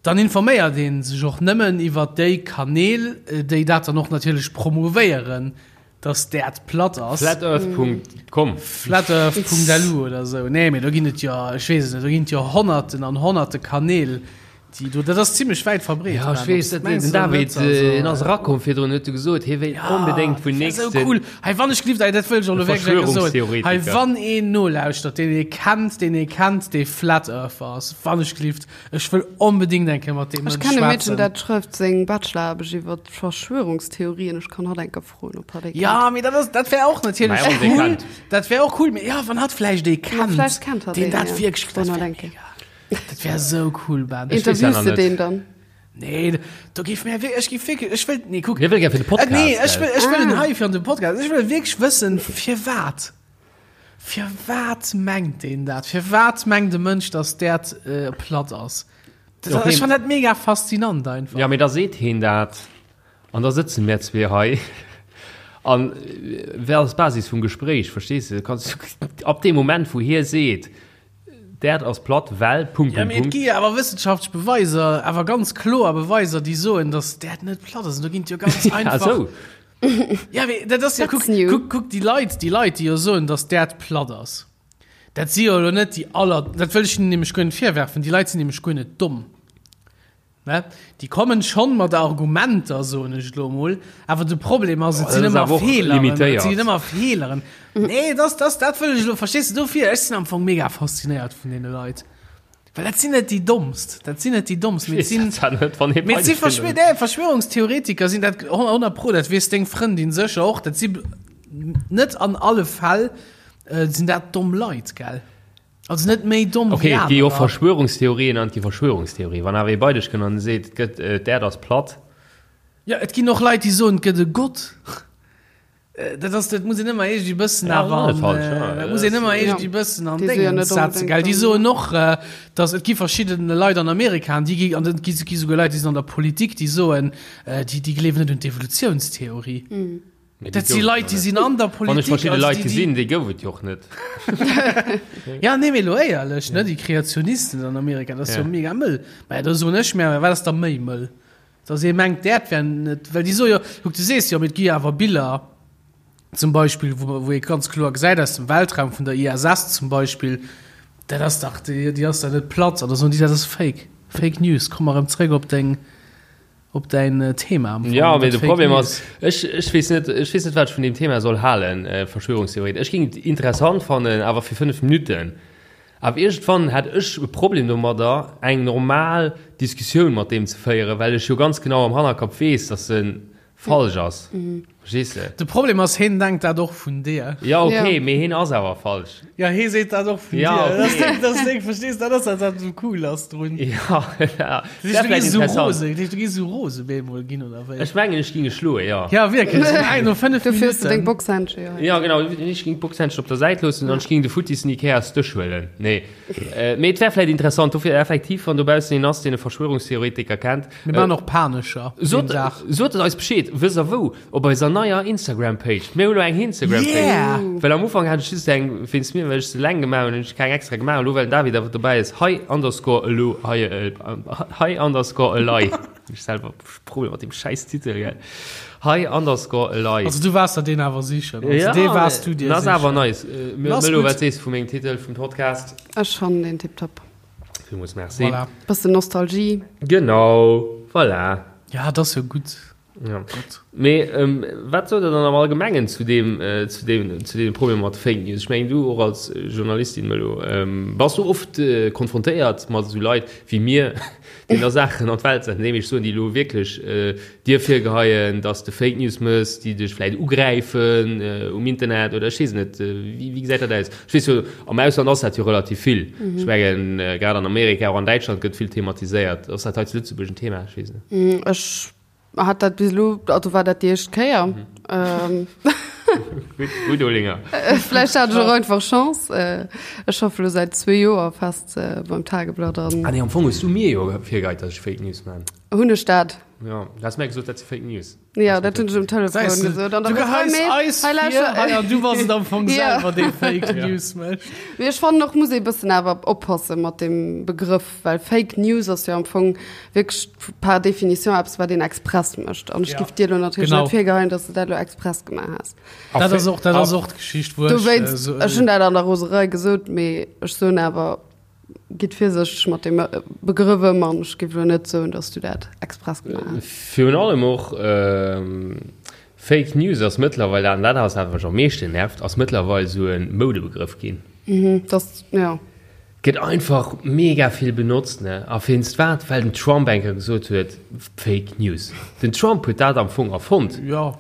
Dann informéiert ee sech och nëmmen iwwer déi Kanäl, déi dat dann och natierlech promouvéieren, dass d'Äerd platt ass. Flatearth.com. Flatearth.lu oder esou. Nee, mee do ginn et jo, ech weess et net, do ginn et jo Honnerten an Honnerte Kanäl, déi do, dat ass zimlech wäit verbreet. Ja, ech weess, dat den David, en ass erakomm virdrun, huet e gesot, hie wéilt onbedéngt vun Dat wär esou nächsten. cool. Hei, wann ech gelift, dat wëll ech och elo wierklech eng Kéier soen. Hei, Verschwörungstheoretiker. wann een nolauschtert, deen ee kennt, deen ee kennt, dee Flat Earther ass, wann ech gelift, Ech wëll onbedingt eng Kéier mat deem Ech Mënsch kennen e Meedchen, schwätzen. dat schrëft seng Bacheloraarbecht iwwer Verschwörungstheorien. Ech kann hatt eng Kéier froen, ob hatt ee kennt. Ja, mee dat ass, dat wär och natierlech Mä och ee cool. kennt. Dat wär och cool, mee ja, wann hatt vläicht ee Ma kennt, vläicht kennt hatt deen een, dat ja. wierklech, dat Wann wär hatt eng mega. Dat wär esou cool, Ben. weess ja Interviews nach de net. deen dann? Nee, do géif mir ech géif wierklech, ech wëll, nee, kuck. Hie wëll gär fir de Podcast, Äh, nee, ech gell? wëll, ech wëll en Ah. hei fir an de Podcast. Ech wëll wierklech wëssen, firwat. Firwat mengt een dat? Firwat mengt e Mënsch, dass d'Äerd platt ass? Dat, Okay. Ech fann dat mega faszinant einfach. Ja, mee da seet heen dat an da sëtze mär zwee hei an wat ass d'Basis vum Gespréich, verstees de? Kanns ab deem Moment, wou hie seet, d'Äerd ass platt, well Punkt, Ja, Punkt, mee et Punkt. gi jo awer wëssenschaftlech Beweiser, awer ganz kloer Beweiser, déi soen, dass d'Äerd net platt ass. An do ginn et jo ganz Ah, einfach. sou. Ja, mee dat ass ja, That's kuck, new. kuck, kuck déi Leit, déi Leit, déi jo soen, dass d'Äerd platt ass. Dat si jo elo net déi aller, dat wëll ech hinnen nämlech guer net virwerfen, déi Leit sinn nämlech guer net domm. Ne? Déi kommen schonn mat Argumenter, soen ech elo emol, awer de Problem ass, et Oh, sinn dat ass ëmmer awer och Feeleren, et limitéiert. sinn ëmmer Feeleren. Nee, das, das, dat wëll ech elo, verstees du, dofir, ech sinn am Fong mega faszinéiert vun deene Leit. Well dat sinn net déi Dommst, dat sinn net déi Dommst, mee et sinn, mee et si Verschwör, nee, Verschwörungstheoretiker sinn dat 100 pro, dat weess deng Frëndin sécher och, dat si net an alle Fäll sinn dat domm Leit, gell? Also net méi domm Okay, et gi jo och Verschwörungstheorien an et gi Verschwörungstheorien. Wann awer ee bei dech kënnt an seet, et gëtt, d'Äerd ass platt. Jo, et ginn och Leit, déi soen, et gëtt e Gott. Dat ass, dat muss een ëmmer iergendwéi bëssen awer an, dat muss een ëmmer iergendwéi bëssen an Déngens setzen, gell. Déi soen och, datt et gi verschidden Leit an Amerika, an déi gi, an et gi souguer Leit, déi sinn an der Politik, déi soen, déi, déi gleewen net un d'Evolutiounstheorie. Dat si Leit, déi sinn an der Politik. Wann ech verschidde Leit gesinn, déi gouf et jo och net. Ja, nee, mee elo éierlech, ne, déi Kreationisten an Amerika, dat ass jo mega mëll. Mä da soen ech mir, wat ass da méi mëll? Dass ee mengt, d'Äerd wär net, well déi soe jo, kuck, du sees jo, mee et gi jo awer Biller zum Beispill, wou wou ee ganz kloer gesäit aus dem Weltraum, vun der ISS zum Beispill, dat ass dach, déi déi ass dach net platt. An da soen déi, dat ass Fake, Fake News. Komm mer erëm zréck op deng, op däin Thema am Fong. Jo, mee de Problem ass, ech ech weess net, ech weess net, wat ech vun deem Thema soll halen, Verschwörungstheorien. Ech géing et interessant fannen, awer fir 5 Minutten. Awer iergendwann hätt ech e Problem domadder, eng normal Diskussioun mat deem ze féieren, well ech jo ganz genau am Hannerkapp weess, dass e falsch ass. Verstees de? De Problem ass, heen denkt dat och vun dir. Jo, okay, mee heen ass awer falsch. Jo, hee seet dat och vun dir. Ja, okay. Dat ass deng, verstees, dat ass dat, wat esou cool ass drun. Jo, dat wär vläicht interessant. Dat heescht, du géifs esou rose bemol ginn, oder wéi? Ech mengen, ech géing e schloen, jo. Ja, wierklech, no 5 Minuten. Dofir hues de deng Boxhändschen jo hei. Jo, genau, ech géing d'Boxhändschen op der Säit loossen an ech géing de futtissen Ikeas-Dësch huelen. Nee, mee et wär vläicht interessant. Dofir effektiv, wann dobaussen een ass, deen e Verschwörungstheoretiker kennt. Mir maachen och Panescher deen Dag. Sot et eis Bescheed, wësst der wou? Op eiser neier Instagram-Page. Mir hunn elo eng Instagram-Page. Yeah! Well am Ufank hat ech just eng wéinst mir, well ech se eleng gemaach hunn, hunn ech keng extra gemaach. Elo well den David awer dobäi ass, hei underscore elo, hei, hei underscore elei. Ech selwer Problem mat dem schäiss Titel, gell. Hei underscore elei. Also du waars der deen awer sichen. Also ja, dee waars du dir sicher. Ass awer nice. Melo, wat sees du vu mengem Titel vum Podcast? Ech fannen deen tiptop. Villmools merci. Voilà. Bëssen Nostalgie. Genau, voilà. Ja, dat ass jo gutt. Ja. Mee ähm, wat sot der dann am Allgemengen zu deem, äh, zu deem, zu deem Problem mat Fake News? Ech mengen, du och als Journalistin, Melo, ähm, bass du oft äh, konfrontéiert mat esou Leit wéi mir, déi da Saachen an d'Welt setzen, déi ech soen, déi elo wierklech äh, dir virgeheien, dass de Fake News mëss, déi dech vläit ugräifen äh, um Internet oder ech weess net, äh, wéi, wéi gesäit dat aus? Ech weess jo, am Ausland ass dat jo relativ vill. Mhm. Ech mengen, äh, grad an Amerika, och an Däitschland gëtt vill thematiséiert. Ass dat hei zu Lëtzebuerg en Thema? Ech weess net. Mm, ech hat dat bis elo, also war dat déi éischt Kéier. Mhm. Ähm. Gutt, gutt, Olinger. Vläicht hat ech och einfach Chance. Äh, ech schaffe lo säit zwee Joer fest äh, beim Tageblatt an. Ah nee, am Fong hues du mir jo virgeheit, dass ech Fake News man. Hunn ech dat? Ja, du has mir gesot, dat si Fake News. Ja, dat hunn ech um Telefon gesot. An du geheis eis vir, hei, an du bass et am Fong selwer, dee Fake News mécht. Mee ech fannen och, muss ee bëssen awer oppasse mat deem Begrëff, well Fake News ass jo am Fong wierklech par définition eppes, wat een express mécht. An ech giff dir elo natierlech net virgeheien, dass de dat elo express gemaach has. Dat ass och, dat ass och d'Geschicht, wou ech. Dowéinst, ech hunn dat an der Roserei gesot, mee ech soen awer, Gitt virsichteg mat deem Begrëff ëm an ech géif elo net soen, datt s du dat express gemaach hues. Virun allem och Fake News ass mëttlerweil, an dat ass dat, wat mech am meeschten nervt, ass mëttlerweil esou e Moudebegrëff ginn. Mhm, dat, jo. Gëtt einfach mega vill benotzt, ne? A wéinst wat? Well den Trump eng Kéier gesot huet, Fake News. Den Trump huet dat am Fong erfonnt. Jo.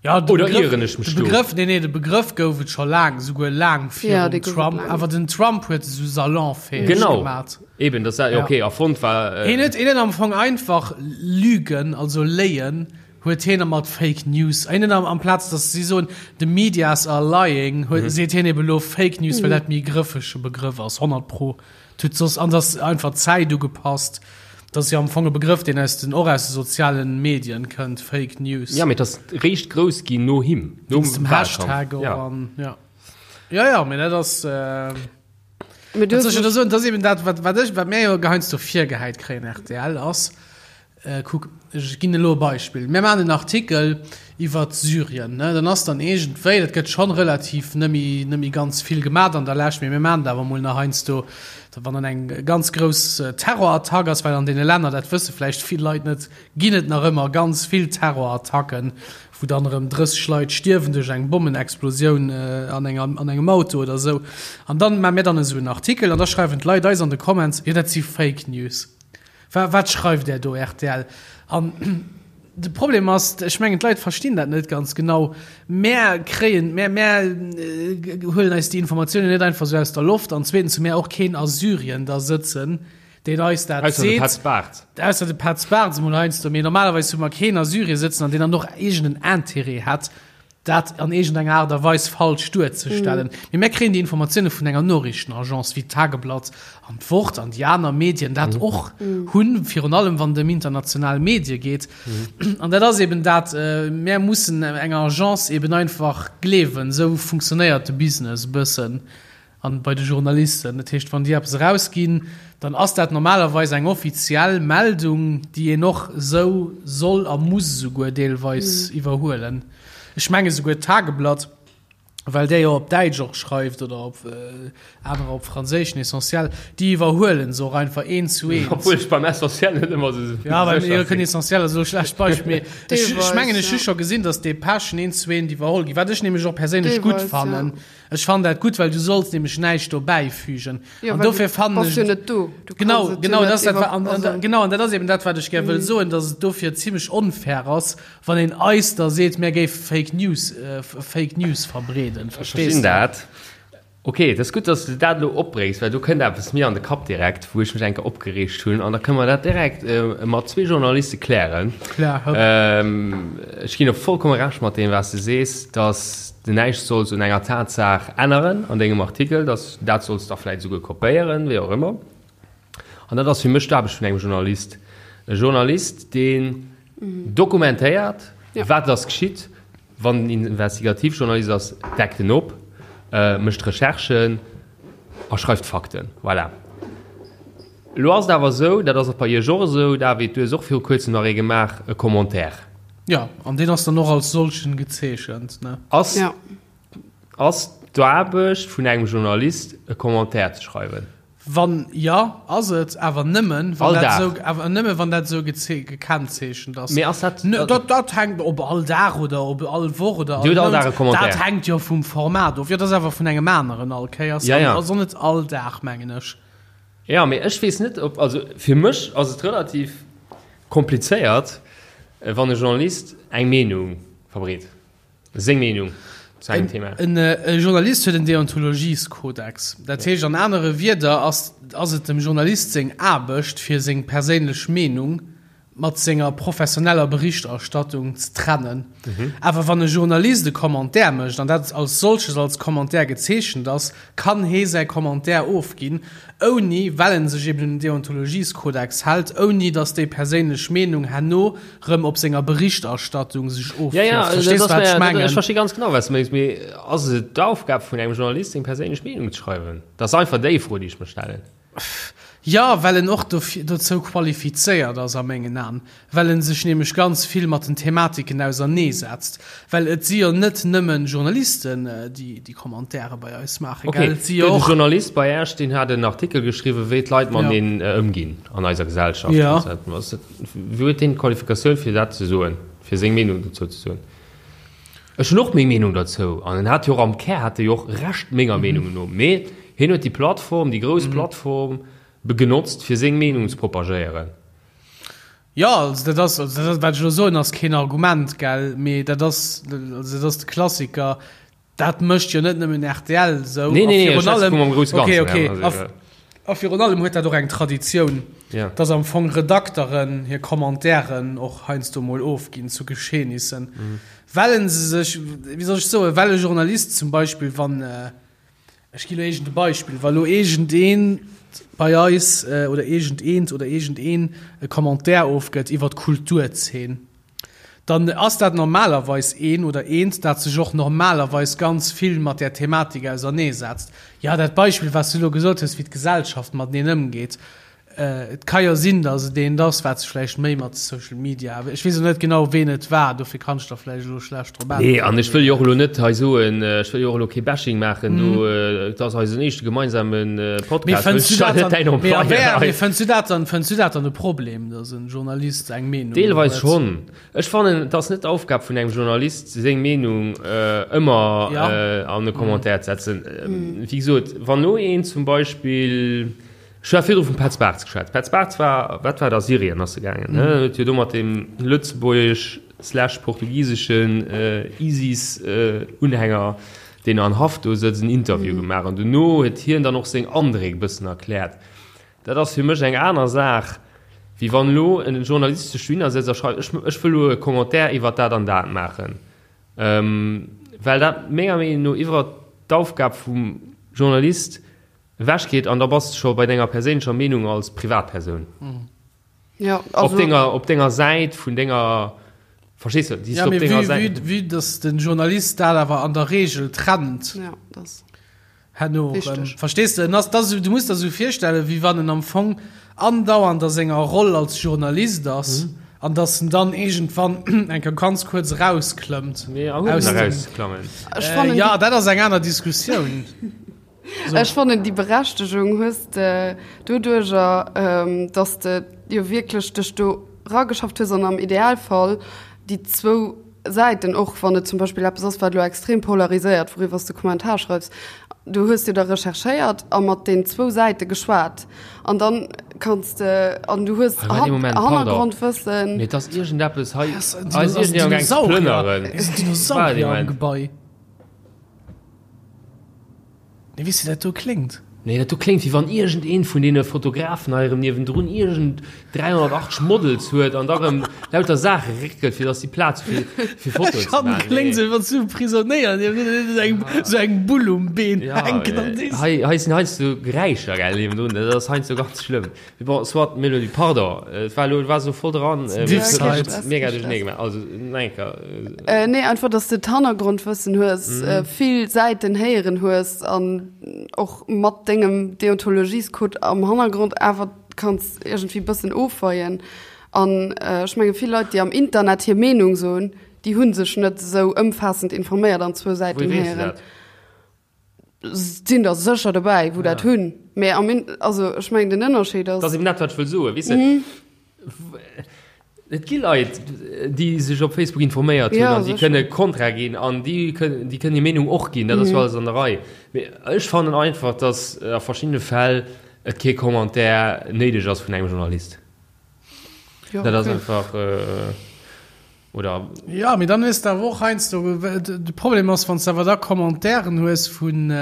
Ja, de Oder Begrëff, ieren ech mech de do? Begrëff, nee, nee, de Begrëff gouf et scho laang, souguer laang Ja, virum dee gouf et Trump. laang. Awer den Trump huet e sou salonfäeg Genau. gemat. Eben, das ja, Ja. okay, erfonnt war. Äh, Hien huet, hien huet am Fong einfach Lügen, also Léien, huet hien mat Fake News. Hien huet am, amplaz, dass si soen, the medias are lying, huet, seet hien eben elo Fake News, well dat méi grëffege Begrëff ass, 100 pro. Tut soss an ass einfach d'Zäit ugepasst. Dat ass jo am Fong e Begrëff, deen aus den, och aus de sozialen Medien kënnt, Fake News. Ja, mee et ass réischt grouss ginn no him, nom Wéinst dem Wahlkampf. Hashtag och Ja. an, ja. Ja, ja, mee dat ass, Mee du wat hues soll ech da mech. soen, dat ass eben dat, wat, wat ech, wat mir jo heiansdo virgehäit kréien, rtl, ass, Kuck, ech ginn elo e Beispill. Mir maachen en Artikel iwwert Syrien, ne? Dann ass dann iergendwéi, dat gëtt schonn relativ net méi, net méi ganz vill gemat an der Lescht, mee mir maachen et awer emol nach heiansdo, wann dann eng ganz grouss Terrorattack ass, well an deene Länner, dat wësse vläicht vill Leit net, ginn et nach ëmmer ganz vill Terrorattacken, wou dann erëm 30 Leit stierwen duerch eng Bommenexplosioun an enger, an engem Auto oder esou. An dann maache mir dann esou en Artikel an da schreiwen d'Leit eis an de Comments, jo dat si Fake News. Wa wat schreift där do, rtl? An. De Problem ass, ech mengen d'Leit verstinn dat net ganz genau, mär kréien, mär, mär huelen eis déi Informatiounen net einfach esou aus der Loft an zweetens hu mär och keen a Syrien da sëtzen, deen eis dat Ausser de seet. Petz Bartz. Ausser de Petz Bartz emol heiansdo, mee normalerweis hu mer keen a Syrien sëtzen an deen dann och iergend en Intérêt hätt, dat an iergendenger Aart a Weis falsch duerzestellen. Mee mär kréien déi Informatioune vun enger Noriichtenagence wéi d'Tageblatt an d'Wort an déi aner Medien dat och hunn, virun allem wann et ëm international Medie geet. An dat ass eben dat, mär mussen enger Agence eben einfach gleewen. Esou funktionéiert de Business e bëssen. An bei de Journalisten. Dat heescht, wann déi eppes erausginn, dann ass dat normalerweis eng offiziell Meldung, déi een och esou soll a muss esouguer deelweis iwwerhuelen. Ech menge souguer d'Tageblatt, well där jo op Däitsch och schreift oder op anerer op Franséisch, den Essentiel, déi iwwerhuelen se och einfach eent zu eent. Obwuel ech beim Essentiel net ëmmer esou sécher Ja, beim sinn. Essentiel ass elo e schlecht Beispill, mee ech Deelweis, mengen, ech hu ja. scho gesinn, datt Depeschen eent zu eent iwwerholl ginn, wat ech nämlech och perséinlech gutt Deelweis, ja. fannen. Ech fannen dat gutt, well du solls nämlech näischt do bäifügen. Jo, An well dofir du fannen bass ech jo net do. Du kanns Genau, et jo genau, net dat ass dat, iwwer, wa- an, an, also. genau, an dat ass eben dat, wat ech gär wëll soen, dass et dofir zimmlech onfair ass, wann een eis da seet, mär géife Fake News, äh, Fake News verbreeden. Ech Verstees verstinn de? dat. Ok, et ass gutt, dass s de dat elo opbréngs, well do kënnt eppes mir an de Kapp direkt, wou ech mech eng Kéier opgereegt hunn. An da kënne mer dat direkt mat zwee Journaliste klären. Klär, hëpp. Ech ginn der vollkomme Recht mat deem, wat s de sees, dass de näischt solls un enger Tatsaach änneren an dengem Artikel, dass dat solls da vläicht esouguer kopéieren, wéi och ëmmer. An dat ass fir mech d'Aarbecht vun engem Journalist. E Journalist, deen dokumentéiert, wat ass geschitt, Wann en Investigativjournalist ass, deckt en op, mécht Recherchen a schreift Fakten. Voilà. Elo ass et awer esou, dat ass och bei Iech och esou, David, du hues och viru kuerzem nach ee gemaach, e Commentaire. Jo, an deen ass dann och als solchen gezeechent, ne? Ass, ass d'Aarbecht vun engem Journalist, e Commentaire ze schreiwen? Wann jo, ass et, awer nëmmen, wann All dat Dag. esou, awer nëmmen, wann dat esou gekennzeechent ass. Mee ass dat. Ne, dat, dat hänkt ob all Dag oder ob all Woch oder Dir hutt all Mount, Dag e Commentaire. Dat hänkt jo vum Format of. Jo, dat ass awer vun engem aneren all Kéiers. Ja, ja. Also net all Dag, mengen ech. Ja, mee ech weess net, ob, also fir mech ass et relativ komplizéiert, wann e Journalist eng Meenung verbreet. Seng Meenung zu engem Thema. En Journalist huet en Deontologieskodex. Dat heescht an anere Wierder ass ass et dem Journalist seng Aarbecht, fir seng perséinlech Meenung mat senger professioneller Berichterstattung ze trennen. Awer wann e Journalist e Commentaire mécht, an dat als solches als Commentaire gezeechent ass, kann hee säi Commentaire ofginn, ouni, well en sech eben un den Deontologieskodex hält, ouni datt déi perséinlech Meenung herno rëm op senger Berichterstattung sech Ja, ja, ofwierft. Verstees du, wat ech mengen? Ech versti ganz genau, wat s du mengs. Mee ass et d'Aufgab vun engem Journalist, seng perséinlech Meenung ze schreiwen? Dat ass einfach déi Fro, déi ech mer stellen. Jo, well en och dofir, dozou qualifizéiert ass a mengen Aen, well en sech nämlech ganz vill mat den Thematiken auserneesetzt. Well et si jo net nëmmen Journalisten, déi déi Commentaire bei eis maachen, Ok, gell? Et si jo gëtt e och. Journalist bei Äech, deen hat en Artikel geschriwwen, wéi d'Leit Ja. mateneen ëmginn an eiser Gesellschaft. Ja. Ass dat, wou huet deen d'Qualifikatioun, fir dat ze soen, fir seng Meenung dozou ze soen? Ech hunn och meng Meenung derzou an en hat jo och am Kär hat e jo och Recht menger Meenung no, mee hien huet déi Plattform, déi grouss Plattform genotzt fir seng Meenung ze propagéieren. Jo, also dat ass, also dat ass, wat ech elo soen, ass keen Argument, gell, mee dat ass, also dat ass de Klassiker, dat mécht jo net nëmmen rtl esou. Nee, nee, nee, a ech virun schwätze allem, vum am grousse okay, Ganzen, okay, ja, also, a, a virun allem huet dat och eng Traditioun, Ja. dass am Fong Redakteren hir Commentairen och heiansdo mol ofginn zu Geschehnissen, well se sech, wéi soll ech soen, well e Journalist zum Beispill, wann, Ech ginn elo iergend e Beispill, Wa lo iergendeen bei eis oder iergendeent oder iergendeen e Commentaire ofgëtt iwwer d'Kulturzeen, dann ass dat normalerweis een oder eent, dat sech och normalerweis ganz vill mat där Thematik auserneesetzt. Jo, dat Beispill, wat s du elo gesot hues, wéi d'Gesellschaft mateneen ëmgeet, Et ka jo sinn, datt et eent ass, wat sech vläicht méi mat Social Media, ech weess elo net genau, ween et war, dofir kann ech der vläicht elo schlecht drop Nee, an äntweren. ech wëll jo och elo net hei soen, ech wëll jo och elo kee Bashing maachen do, et ass eisen éischte gemeinsame Mee Podcast, fënns ech du dat net däin dann, mee a Employé wär, hei. mee fënns du dat dann, fënns du dat dann e Problem, datt en Journalist eng Meenung Deelweis huet? schonn. Ech fannen, et ass net d'Aufgab vun engem Journalist, seng Meenung ëmmer Ja. an e Commentaire ze setzen. Wéi gesot, wann elo een zum Beispill. Ech hat virdru vum Petz Bartz geschwat. Petz Bartz war, wat war dat, a Syrien ass e gaangen, ne? Huet jo do mat deem lëtzebuergesch slash portugiseschen ISIS-Unhänger, deen an Haft do sëtzt, en Interview gemaach. An dono huet hien dann och seng Andréck e bëssen erkläert. Dat ass fir mech eng aner Saach, wéi wann elo e Journalist sech dohinner sëtzt a schreift, ech, ech wëll elo e Commentaire iwwer dat an dat maachen. Well dat menger Meenung no iwwer d'Aufgab vum Journalist ewechgeet an da bass de scho bei denger perséinlecher Meenung als Privatpersoun. Ja, also, op denger, op denger Säit vun denger, verstees du, déi ja, op denger Säit. Vue, vue dass den Journalist dat awer an der Regel trennt. Ja, das. Herno, ähm, verstees du, das, das, du musst der so virstellen, wéi wann en am Fong andauernd a senger Roll als Journalist ass. Mhm. An dass en dann iergendwann eng Kéier ganz kuerz erausklëmmt. Nee, aus dem, erausklammen. Äh, ja, dat ass eng aner Diskussioun. So. Ech fannen déi Berechtegung hues de doduercher, dass de jo wierklech dech do rageschafft hues an am Idealfall déi zwou Säiten, och wann et zum Beispill eppes ass, wat elo extrem polariséiert, wouriwwer s de Kommentar schreifs, du hues jo da recherchéiert a mat den zwou Säite geschwat an dann kanns de an du hues Hannergrondwëssen. Mee et ass iergendeppes hei, hei ass iergendeen am gaang ze plënneren. Dinosaurier am Gebai. Nee, weess de, dat do kléngt. Nee, dat do kléngt, wéi wann iergendeen vun deene Fotografen hei erëm niewendrun iergend 380 Models huet an da erëm lauter Saache réckelt, fir dass si Plaz hu fir, fir Fotoen ze maachen. Kléngt sou, wéi wann s du e Prisonéier niewendrun hues, eng, sou eng Bull um Been hänken an dees. Hei, hei sinn heiansdo Geräischer, gell, niewendrun, dat ass heiansdo ganz schlëmm. Mee bon, soit, Mélodie, pardon, et war elo, et war sou voll dran, mee et huet mega duerchernee gemaach. Also, nach eng Kéier. Nee, einfach, dass de d'Hannergrondwëssen hues, vill Säiten héieren hues an och mat dengem Deontologiescode am Hannergrond awer kanns iergendwéi bëssen ofweien. An ech menge vill Leit, déi am Internet hir Meenung soen, déi hu sech net esou ëmfaassend informéiert an zwou Säiten Wouhier weess de héieren. dat? Sinn der sécher dobäi, wou dat hunn. Mee am In-, also ech mengen den Ënnerscheed ass. Dat ass eben dat, wat ech wëll soen, weess de. Et gi Leit, déi sech op Facebook informéiert hunn an déi kënne kontra ginn an déi kënnen, déi kënnen hir Meenung och ginn, dat ass jo alles an der Rei. Mee ech fannen einfach, datt a verschiddene Fäll et kee Commentaire néideg ass vun engem Journalist. Dat ass einfach. Oder? Jo, mee dann hues de awer och heiansdo, de Problem ass, wann s de awer da Commentairen hues vun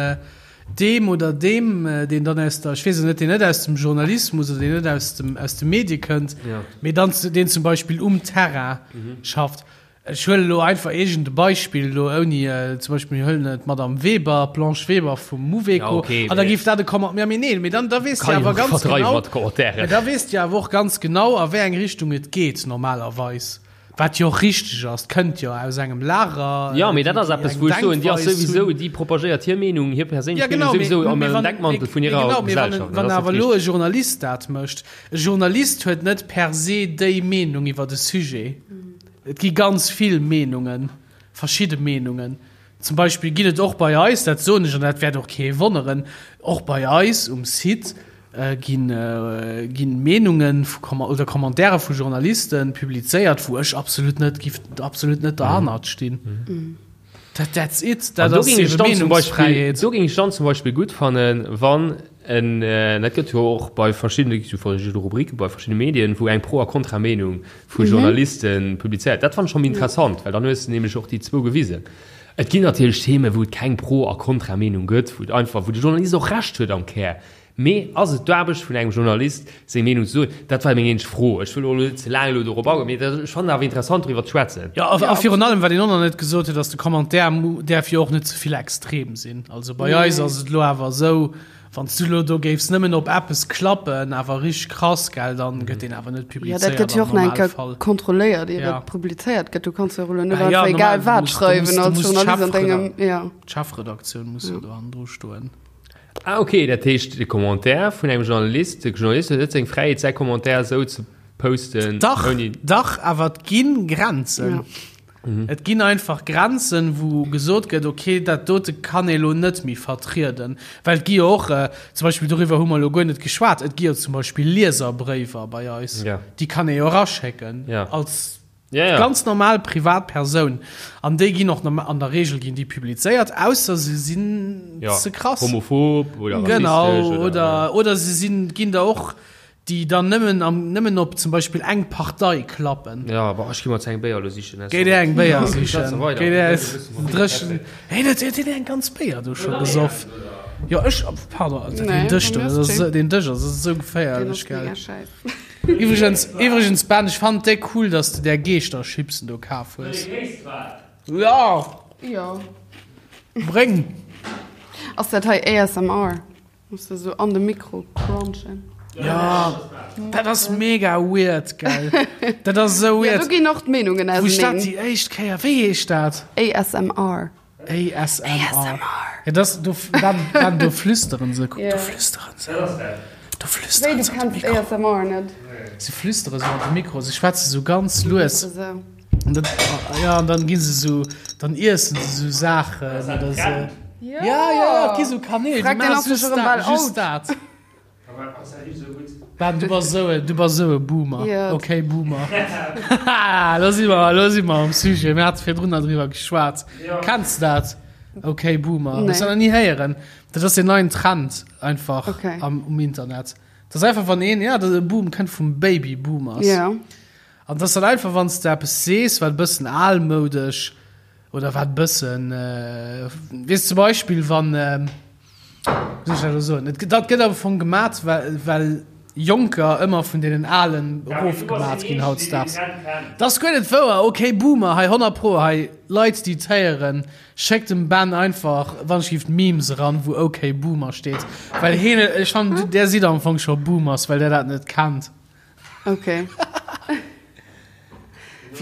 deem oder deem, deen dann aus der, ech weess et net, deen net aus dem Journalismus oder deen net aus dem, aus de Medie kënnt, mee dann deen zum Beispill um Terrain schafft. Ech huelen elo einfach iergend e Beispill elo ouni, zum Beispill mir huelen d'Madame Weber, d'Blanche Weber vum Mouveco, an da géif dat e Comment, ja mee nee, mee dann da weess de awer ganz genau, mee da weess de awer och ganz genau a wéi eng Richtung et geet normalerweis. Wat jo och richteg ass, kënnt jo aus engem Lager. Jo, mee dat ass eppes, wou ech soen, déi ass souwisou, déi propagéiert hir Meenung, hir perséinlech Meenung souwisou am Deckmantel vun hirer Gesellschaft. Wann awer elo e Journalist dat mécht, e Journalist huet net per se déi Meenung iwwer e Sujet. Et gi ganz vill Meenungen, verschidde Meenungen. Zum Beispill ginn et och bei eis, dat soen ech an dat wäert och kee wonneren, och bei eis um Site ginn Meenungen oder Commentaire vu Journaliste publizéiert, wou ech absolut net giff absolut net derhannert stinn. Dat that's it, dat ass ebe Meenungsfräiheet. Do géing ech dann zum Beispill gutt fannen, wann en, dat gëtt jo och bei verschiddene, gi jo verschidde Rubrike bei verschiddene Medien, wou eng Pro a Kontra-Meenung vu Journaliste publizéiert. Dat fannen ech schonn méi interessant, well dann hues de nämlech och déi zwou gewisen. Et ginn natierlech Themen, wou et keng Pro a Kontra-Meenung gëtt, wou et einfach, wou de Journalist och Recht huet am Kär. Mee ass et d'Aarbecht vun engem Journalist, seng Meenung ze soen? Dat war meng eenzeg Fro. Ech wëll och elo net ze laang elo dorop agoen, mee ech fannen awer interessant, doriwwer ze schwätzen. Jo, a virun allem, wat een och nach net gesot huet, ass, de Commentaire däerf jo och net ze vill extrem sinn. Also bei eis ass et elo awer esou, wann s du elo do géifs nëmmen op eppes klappen, awer richteg krass, gell, dann gëtt deen awer net publizéiert am Normalfall. Jo, dat gëtt jo och nach eng Kéier kontrolléiert, ier et publizéiert gëtt. Du kanns jo och elo net einfach egal wat schreiwen als Journalist an dengem, jo. D'Chefredaktioun muss jo do hannendru stoen. Ah ok, dat heescht de Commentaire vun engem Journalist, de Journalist huet net seng Fräiheet säi Commentaire esou ze posten Dach, ouni. dach, awer et gi Grenzen. Ja. Et ginn einfach Grenzen, wou gesot gëtt, okay, dat dote kann ee lo net méi vertrieden. Well et gi jo och, zum Beispill doriwwer hu mer elo guer net geschwat, et gi jo zum Beispill Lieserbréiwer bei eis, Ja. déi kann ee jo eraschécken Ja. als. Ja, ja. Ganz normal privat Persoun. An déi ginn och an der Regel ginn déi publizéiert, ausser se sinn ja. ze krass. Homophob oder genau, rassistesch oder, oder, oder se sinn, ginn der och, déi dann nëmmen, am, nëmmen op zum Beispill eng Partei klappen. Ja, boah, ech gi mer eng Béier lo sichen. Géi dir eng Béier sichen. Géi dir dréchen. Hey, dat huet een eng ganz Béier do scho gesoff. Jo, ech, pardon, den Dësch do, den Dësch ass esou geféierlech, gell. Iwwregens, iwwregens Ben, ech fannen et déck cool, dass de där Geeschterchipsen do kaf hues. Ja! Jo. Bréng! Ass dat hei ASMR? Muss de sou an de Mikro crunchen. Ja, dat ass mega weird, gell? Dat ass esou Ja, weird. do ginn och d'Meenungen Wou ech dat auseneen. déi éischt Kéier, wéi heescht dat? ASMR. ASMR. Ja, das, do, dann, dann, do flüsteren se, kuck, do flüsteren se. Do flüsteren Wéi, du se an de kenns Mikro. ASMR net? Se flüstere sou an de Mikro, se schwätze sou ganz lues. Esou. An dann, ja, an dann gi se sou, dann iessen se sou Saachen oder sou. Ja, ja, ja, et gi sou Kanäl, déi Frag den maache ass just sech erëm dat, bal just out. dat. Ben, du bass esou e, du bass esou e Boomer. Ja. Okay, Boomer. Haha, lo si mer, lo si mer am Sujet. Mir hate virdrun nach driwwer geschwat. Kenns de dat? Okay, Boomer. Nee. Hues du nach ni héieren? Dat ass deen neien Trend einfach Okay. am, um Internet. Dat ass einfach, wann een, ja, de Boom kënnt vum Baby Boomers. Ja. An dat ass dann einfach, wann s de eppes sees, wat e bëssen almoudesch oder wat e bëssen, äh, weess zum Beispill, wann, äh, Wéi soll ech dat elo soen? Et, dat gëtt am Fong gemat, well, well Jonker ëmmer vun deenen Alen erofgemat ginn hautdesdaags. Dat ass guer net wouer! Ok, Boomer, hei 100 pro, hei Leit, déi et héieren, schéckt dem Ben einfach wann ech giff Memes eran, wou ok Boomer steet, well heen, ech fannen, där sidd am Fong scho Boomers, well där dat net kennt. Okay.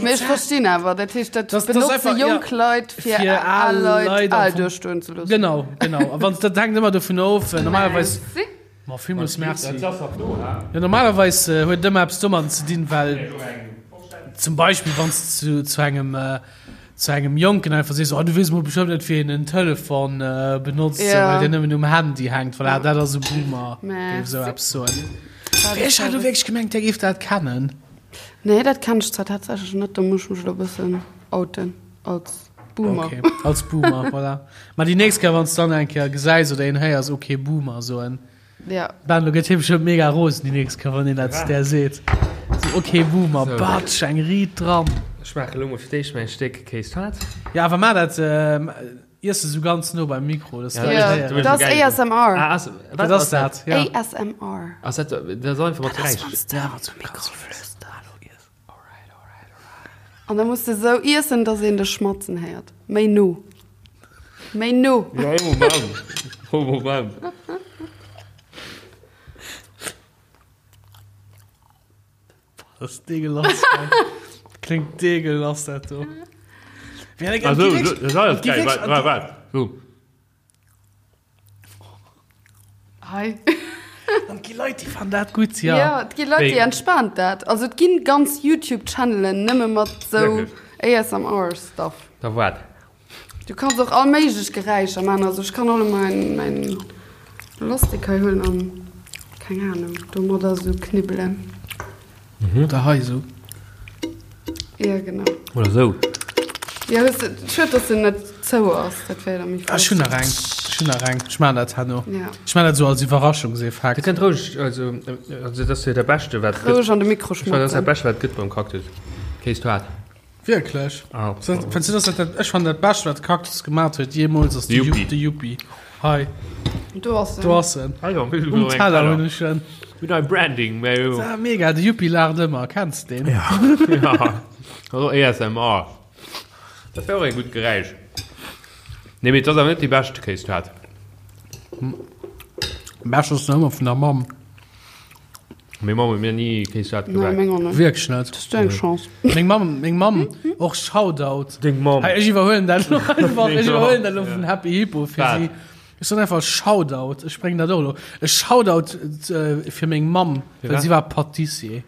Mee ech verstinn awer, dat heescht, dat Das- das benotze einfach, jonk ja, Leit, fir fir al al Leit Leit am al Fong. duerstoen ze loossen. Genau, genau. A wann, dat hänkt ëmmer dovun of, normalerweis. Merci. Ma villmools merci. Ja, normalerweis äh, huet et ëmmer eppes domadden ze dinn, well zum Beispill wann s zu, zu engem äh, zu engem Jonken einfach sees, oh, du weess mol bestëmmt net, wéi een en Telefon äh, benotzt, Ja. well deen nëmmen um Handy hänkt. Voilà, dat ass e Boomer, géif esou Merci. eppes soen. Ech hat elo wierklech gemengt, där géif dat kennen. Nee, dat kennen ech zwar tatsächlech net, do muss ech mech elo e bëssen outen als Boomer. Okay, als Boomer, voilà. Ma déi nächst Kéier, wann s dann eng Kéier gesäis oder een héiers, okay, Boomer soen. Ja. Ben, lo gëtt hie bestëmmt mega rosen déi nächst Kéier, wann een dat zu där seet. So, okay, Boomer, So. batsch, eng Riit dran. Ech maache lo mol fir d'éischt mäin Stéck Kéis-Tart. Ja, awer maach dat, iess esou ganz no beim Mikro, dass Ja, d'Leit Ja, héieren. du bist dat ass geil. ASMR. Ah, ass, Dat ass dat, ja. ASMR. Ass dat, dat ass einfach mat Dat ass, Geräisch. wann s de Ja, an de Mikro flüsters. An da muss de sou iessen, dass een dech schmatzen héiert. Méi no. Méi no. Ja, ee Moment. Ee Moment. Dat ass deegelass. Kléngt deegelass, dat do. Also, dat ass alles geil. Waart, waart, waart. So. Hei. An et gi Leit, déi fannen dat gutt, ja. Ja, et gi Leit, déi entspaant dat. Also et ginn ganz YouTube-Channelen nëmme mat sou ASMR-Stuff. Da waart. Du kanns och all méiglech Geräischer man. Also ech kann och elo mäin, mäin Lastik hei huelen an, keng Ahnung, domadder sou knibbelen. Oder hei esou. Ja, genau. Oder sou. Ja, hues de, schued, dass en net zou ass, dat wär da méi Ech flott. hunn nach eng, ech hunn nach eng. Ech maachen dat herno. Ja. Ech maachen dat esou als Dir Iwwerraschungseffekt. kënnt roueg, also, also dat ass jo dat Beschte wat et Roueg gëtt. an de Mikro Ech fannen, dat ass dat schmatzen. Beschte wat et gëtt beim Cactus. Kéis-Toart. Wierklech? Ah. Fënns du, dass dat dat, ech fannen dat Bescht, wat Cactus gemat huet jeemools, ass de Yuppie. De Yuppie. Hei, Do ass en. do ass en. Ah jo, mir Um Teller hunn ech en. Mir hunn ein Branding, mä jo. Ah, mega, de Yuppie laacht ëmmer. Kenns de deen? Ja. Also ASMR. Dat wär och e gutt Geräisch. Nee, mee et ass awer net déi bescht Kéistaart. Bescht ass nach ëmmer vun der Mamm. Meng Mamm huet mir ni Kéistaart Nee, gebak. meng och net. Wierklech net. Dat ass deng Chance. Meng Mamm, meng Mamm, och Shoutout. Deng Mamm. Hey, ech iwwerhuelen dat lo einfach. Ech iwwerhuelen dat lo Ja. vun Happy Hippo fir Wat? si. Ech soen einfach Shoutout. Ech bréngen dat och elo. E Shoutout äh, fir meng Mamm, well wat? si war Patissier.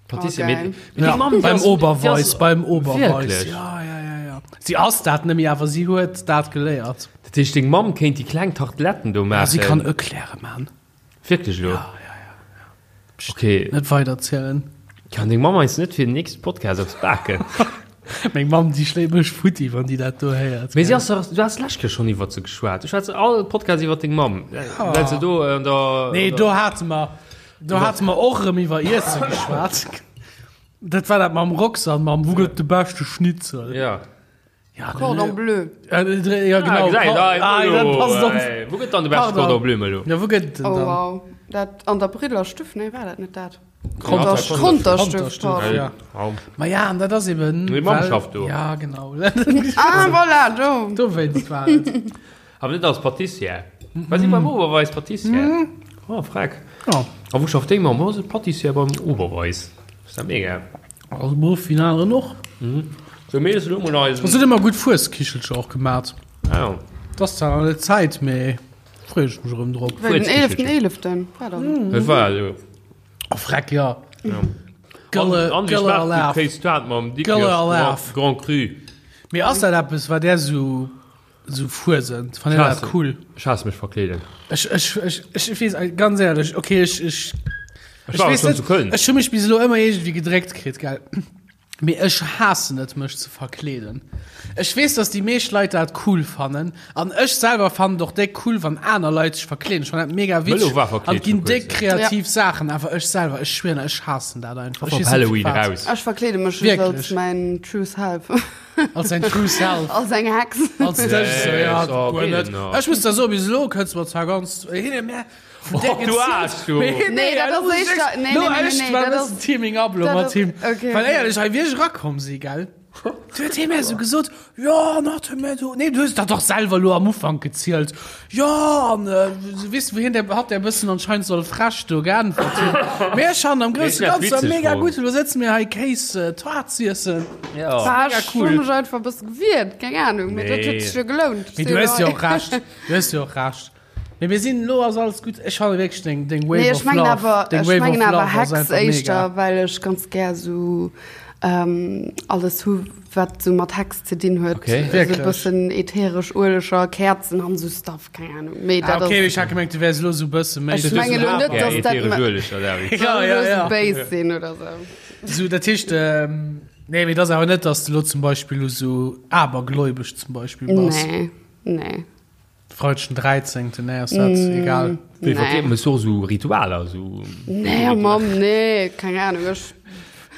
Patissier, Oh, mee- geil. mee Ja, deng Mamm, déi beim ass- Oberweis, déi ass- beim Oberweis. Wierklech? Ja, ja, ja, ja. Si ass dat net méi, awer si huet dat geléiert. Dat heescht, deng Mamm kéint déi kleng Tarteletten do Ja, maachen. si kann Eclairen man. Wierklech elo? Ja, ja, ja. Okay. Net weiderzielen. Kann deng Mamm eis net fir den nächste Podcast eppes baken? Meng Mamm, déi schléit mech futti, wann déi dat do héiert. Mee si ass dach, du has d'lescht Kéier schonn iwwert se geschwat. Du schwätz all Podcast iwwert deng Mamm. Well se do an der. Nee, do hate mer, do hate mer och erëm iwwer Iesse geschwat. Dat war dat mam Roxanne, mam Wou gëtt de beschte Schnitzel? Ja. Ja, Cordon bleu. Ja, ja genau. Ah, ah, dat passt op. Wou gëtt dann de beschte Cordon bleu, Melo? Ja, wou gëtt den Oh dann? wow. Dat an der Briller Stüff, nee, war dat net dat? Konterstüff. Konterstüff, pardon. Ja. Ma ja, an dat ass eben. Meng Mamm well- schafft do. Ja, genau. Ah, voilà, do. Dowéinst war et. Awer net als Patissière. War si beim Oberweis Patissière? Oh, freck. Ja. A wou schafft deng Mamm? Oh, se Patissière beim Oberweis. Ass dat mega. Also Beruff wéi en aneren och. Sou, mir iessen elo mol eisen. Se huet ëmmer gutt Fueskichelcher och gemat. Ah jo. Et ass zwar nach net Zäit, mee freeë ech mech erëm drop. Wéi den 11.11. war dann. Dat war elo. Oh, freck, jo. Ja. Gëlle, An, an wéi Gëlle schmaacht déi Alaf. Kéistuart mam Gëlle Dikrech Alaf. Grand Cru? Mee ass dat eppes, wat där sou, sou fuesent? Fannt Dir dat cool? Ech haasse mech verkleeden. Ech, ech, ech, ech weess, ganz éierlech, okay, ech, ech, Ech war weess schon net, zu Köln. Ech hu mech bis elo ëmmer iergendwéi gedréckt kritt, gell. Mee ech haassen et, mech ze verkleeden. Ech weess, dass déi meescht Leit dat cool fannen. An ech selwer fannen et och déck cool, wann aner Leit sech verkleeden. Ech fannen dat mega Mëllo witzeg war an verkleet et ginn vor déck kuerzem. kreativ Saachen. Awer ech selwer, ech schwieren, ech haassen dat einfach. Ech Op weess net Halloween firwat. raus. Ech verkleede mech just Wierklech? als mäin True Self. Als dein True Self. Als eng Hex. Als dech, so, ja, so, guer net. genau. Ech muss der soen, bis elo kënns du mer zwar ganz hin, mä vun där Oh, du Aarsch, du. Nee, Nee, dat ass éischter- nee, nee, nee, nee, nee, dat dat ass ass- Teaming up lo dat mat ass- him. okay, Well okay. éierlech, hei wéi ech erakomm si, gell? Du huet hie mir esou gesot, jo, an hat hie mir do, nee, du hues dat dach selwer lo am Ufank gezielt. Jo, an äh, weess du, wéi hien der, hat der e bëssen anscheinend soll frech do geäntwert hunn. Mee ech han am Nee, ech grousse dat Ganze witzeg mega fonnt. gutt, lo sëtze mir hei Kéis äh, Toart z'iessen. Ja. Bah, mega ech cool. hu mech einfach e bësse gewiert, keng Ahnung, mee dat huet Nee. sech jo gelount. Mee du hues jo och Recht, du hues jo och Recht. Mee mir sinn, lo ass alles gutt. Ech fannen wierklech deng, deng Wave Nee, ech of mengen Love, awer, deng ech Wave of mengen awer Love ass Hex einfach éischter, mega. well ech ganz gär sou ähm, alles hu wat sou mat Hex ze dinn huet. Okay. Sou Wierklech? bëssen ätheresch Ueleger, Käerzen an sou Stuff, keng Ahnung. Mee Ah, dat okay, ass, ech hat gemengt, du wärs lo sou bësse méi. Ech mengen elo net, dass dat Ätheresch ma- Ueleger, David. Ja, soll ja, elo sou ja. Base sinn oder sou. Sou, dat heescht, ähm, nee, mee dat ass awer net, dass du lo zum Beispill lo sou abergläubesch zum Beispill bass. Nee, nee. Freideg den 13. Nee, ass dat egal. Wéi verkleet Nee. man so so Ritualer so Nee, Mamm, nee, keng Ahnung. Ech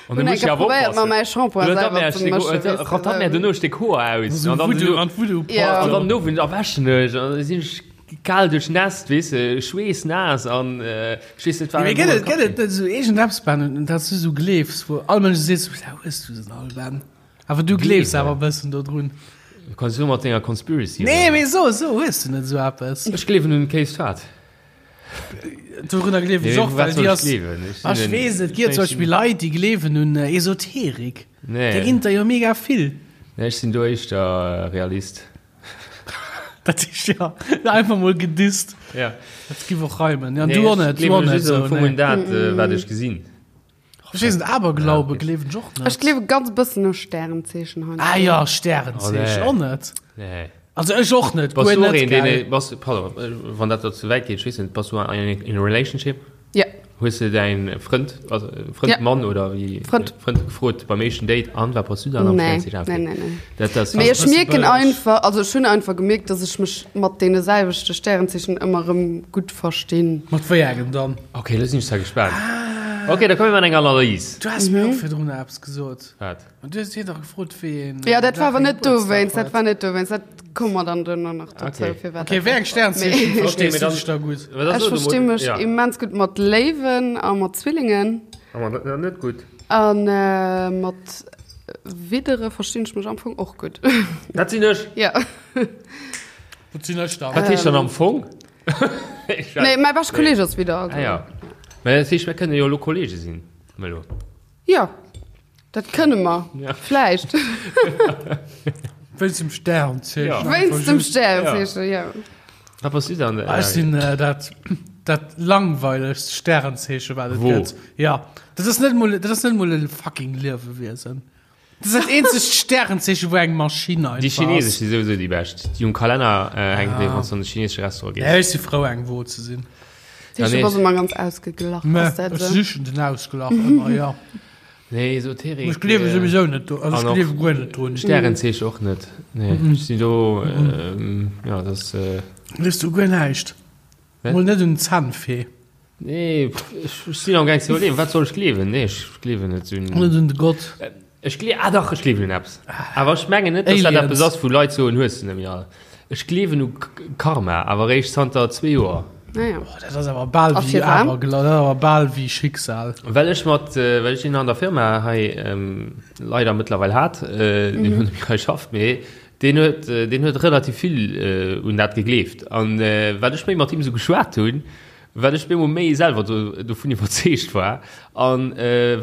An hunn du eng musst ja Kéier awer probéiert, mer oppassen. mäi Shampoing Oder selwer dann ze mëschen, weess de, Ratat mir sou. dono Stéck Hoer aus So an dann Voodoo, so- an Voodoo Ja. an dann no erwäschen ech an dann sinn ech kal duerchnässt, weess de, schweessnaass an äh, ech weess net wat. Mee gëtt et, gëtt et net sou iergendeppes, Ben, un dat s du sou gleefs, wou all Mënsch seet, sou, wou hues du se all, Ben? Awer du gleefs awer e bëssen dodrun. Du kanns jo mat denger Conspiracy. Nee, mee so, so hues du net sou eppes. Ech gleewen un Case Fat. Dorunner gleewen ech och, well déi ass. Ech Ah, Ech weess et gëtt zum Beispill Leit, déi gleewen un Esoterik. Nee. Där ginn der jo mega vill. Nee, ech sinn do éischter Realist. Dat heescht ja, einfach mol gedisst. Ja. Dat giff och reimen. Ja, du och net, du och net. Am So, Fong nee. un dat, wat ech gesinn. Ech weess net, Aberglaube gleewen ech och net. Ech gleewe ganz bëssen u Stärenzeechen heiansdo. Ah ja, Stärenzeechen Oh, och nee. net. Nee. Also ech och net, Bass guer du och net, een, deen, gell. bass, pardon, wann dat der ze wäit geet, ech weess net, bass du an in a relationship? Ja. Hues de däin Frënd, also Frënd, Ja. Mann oder wéi, Frënd. Frënd gefrot beim éischten Date, an wat bass du dann am Nee, Stärenzeechen? nee, nee, nee. Dat ass, Mee ech bësse mierken bëlleg. einfach, also ech hunn einfach gemierkt, dass ech mech mat deene selwechte Stärenzeechen ëmmer erëm gutt verstinn. Mat wéi engem dann? Okay, lo sinn ech zwar gespaant. Okay, da komme mir mat enger Analys. Du has mir och virdrun eppes gesot. Wat? An du hues hien dach gefrot, wéi een. Ja, dat war awer net Gebuertsdag dowéinst, dat huet. war net dowéinst, dat komme mer dann duerno nach dozou, Okay. firwat Okay, dat wéi eng Sternzeechen Mee- verstees mee du dann- dech da gutt? Wat ass Ech lo de versti Mo- mech Ja. immens gutt mat Léiwen a mat Zwillingen Awer dat ass net gutt. an mat Widdere verstinn ech mech am Fong och gutt. Dat sinn ech. Ja. Wat sinn ech dann? Wat heescht dann am Fong? Nee, mäi beschte Kolleeg ass Widder. Also. Ah ja. Mä dat heescht, mir kënne jo elo Kollege sinn, Melo. Ja, dat kënne mer. Ja. Vläicht. Wéinst dem Sternzeechen. Ja. Wéinst dem Sternzeechen, ja. Wat bass du dann? Ah, Ech sinn äh, dat, dat langweilegst Sternzeechen, wat et Wo? gëtt. Ja. Dat ass net mol, dat ass net mol e fucking Liewewiesen. Dat ass dat eenzegt Sternzeechen, wou eng Maschinn einfach Déi chinesesch ass. si souwisou déi bescht. Déi um Kalenner äh, hänken, ah. wann du an de chinesesche Restaurant gees. Ja, ech si frou, eng Wo ze sinn. Ja, nee. du bass ëmmer ganz ausgeglach. Mä Ass dat ech esou? sichen den Ausglach ëmmer, ja. Nee, Esoterik. Ech gleewe souwisou net do, also ech gleewe guer net drun. Stärenzeechen och net. Nee, ech sinn do, jo, dat ass. Gleefs du guer näischt? Mol net un d'Zännfee? Nee, ech sinn am gaang ze iwwerleeën, wat soll ech gleewen? Nee, ech gleewen net un. Net un de Gott? Ech glee, ah dach, ech gleewen un eppes. Awer ech mengen net, dass dat eppes ass, wou Leit soen, hues de net méi all. Ech gleewen u Karma, awer eréischt zanter zwee Joer. Ah ja. Oh, dat ass awer bal A wéi firwat? Aberglaw, dat ass awer bal wéi Schicksal. Well ech mat, well ech een an der Firma hei leider mëttlerweil hat, deen elo net méi hei schafft, mee deen huet, deen huet relativ vill un dat gegleeft. An wat ech méi mat him esou geschwat hunn, wat ech bemol méi selwer do, dovun iwwerzeegt war. An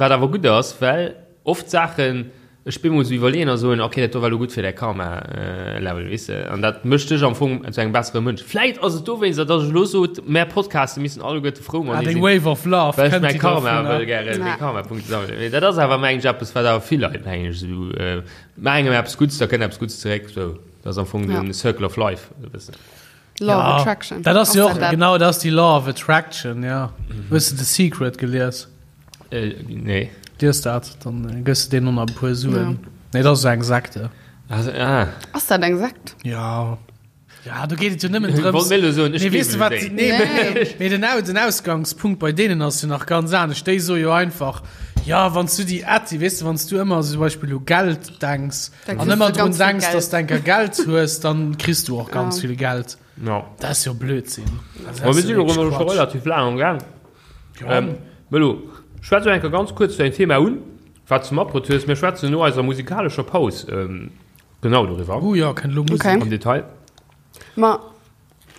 wat awer gutt ass, well oft Saachen Ech bin mol sou iwwerleeën a soen, ok, dat do war lo gutt fir däi Karma-Level, weess de. An dat mécht dech am Fong zu engem bessere Mënsch. Vläit ass et dowéinster, datt ech elo sot, mär Podcaste missten alleguerte frou Ah, matenee deng sinn, Wave of Love well ech kënnt mäi déi Karma dovunner. wëll gären, meng Karma-Punkte sammelen. Mee dat ass awer, meng ech, eppes, wat awer vill Leit, meng ech, esou, maach engem eppes Gutts, da kënnt eppes Gutts zeréck, sou. Dat ass am Fong Ja. de Circle of Life, e bëssen. Law of Ja, Attraction. dat ass jo och, dat dat? genau, dat ass déi Law of Attraction, ja. Hues de The Secret gelies? Äh, nee. Lies dat, dann gëss de deenen och nach e puer Suen. Nee, dat ass esou eng Sekte. Also, ah. Ass dat eng Sekt? Ja. Ja, do geet et jo nëmmen drëms. Wollt mir elo soen, ech Nee, weess de gleewen wat, un déi. nee, Nee. mee den, Au- den Ausgangspunkt bei deenen ass jo nach ganz anescht. Déi soe jo einfach, ja, wann s du déi Atti, weess de, wann s du ëmmer zum Beispill u Geld denks Da an kriss ëmmer du drun ganz vill denks, Geld. dass du enker Geld hues, dann kriss du och ganz Ja. vill Geld. Ja. Dat ass jo Blödsinn. Also, dat Ma ass mir jo sinn och wierklech elo scho Quatsch. relativ laang am Gaang. Ja. Ähm, Melo, schwätz elo eng Kéier ganz kuerz däin Thema un, wat s du matbruet hues. Mir schwätzen no eiser musikalescher Paus genau doriwwer. Oh jo, kënnt elo Musek. Okay. Am Detail. Ma,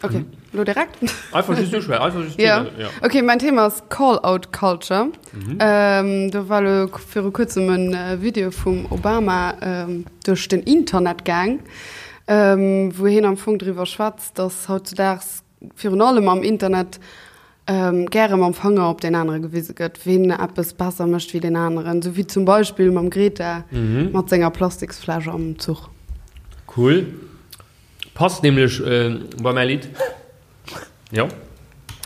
okay, elo direkt? Einfach just uschwätzen, einfach just Ja. Thema, ja. Okay, mein Thema ass Call-out Culture. Ähm, do war elo viru kuerzem en Video vum Obama ähm, duerch den Internet gaang, ähm, wou hien am Fong driwwer schwätzt, dass hautzudaags virun allem am Internet gäre mam Fanger op deen anere gewise gëtt, ween eppes besser mécht wéi deen aneren, sou wéi zum Beispill mam Greta mat senger Plastiksfläsch am Zuch. Cool. Passt nämlech bei mäi Lidd. Jo,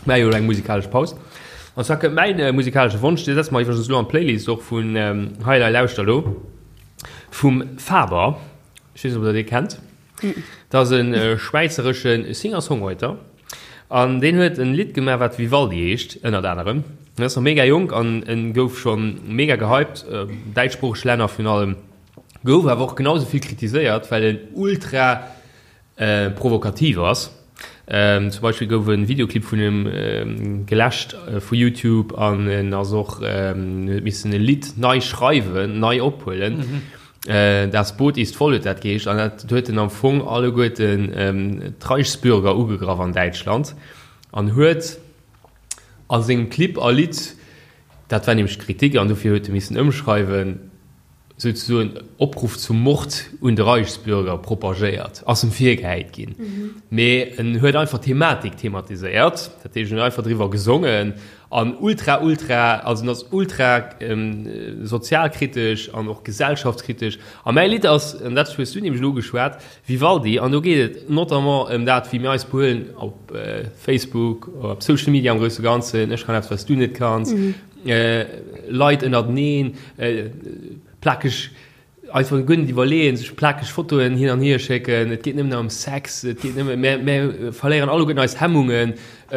mä jo elo eng musikalesch Paus. An zwar kënnt mäin musikalesche Wonsch, dee setze mer iwwregens elo an d'Playlist och vun Hei Lei Lauschter Lo vum Faber. Ech weess net, ob der dee kennt. Dat ass e schwäizeresche Singer-Songwriter an deen huet en Lidd gemaach, wat Vivaldi heescht, ënnert anerem. En ass nach mega jonk an en gouf scho mega gehypt, däitschsproocheg Länner virun allem. Gouf awer och genau esou vill kritiséiert, well en ultra provokativ ass. Zum Beispill gouf e Videoclip vun him geläscht vu YouTube an en ass och, huet missen e Lidd nei schreiwen, nei ophuelen. Das Boot ist voll huet dat geheescht an dat huet en am Fong alleguerten d'Reichsbürger ugegraff an Däitschland an huet a sengem Clip a Lidd, dat war nämlech d'Kritik an dofir huet e missen ëmschreiwen, souzesoen Opruff zum Mord un de Reichsbürger propagéiert, ass em virgehäit ginn. Mee en huet einfach d'Thematik thematiséiert, dat heescht en huet einfach driwwer gesongen an ultra, ultra, also en ass ultra sozialkritesch an och gesellschaftskritesch. A mäi Lidd ass, an dat hues du nämlech elo ugeschwat, Vivaldi, an do geet et notamment ëm dat, wéi mir eis behuelen op Facebook, op Social Media am grousse Ganzen, ech kann eppes, wat s du net kanns, Leit ënnerteneen, plakeg, einfach guer net iwwerleeën, sech plakeg Fotoen hin an hier schécken, et geet nëmmen nach ëm Sex, et geet nëmmen, mir, mir verléieren alleguerten eis Hemmungen,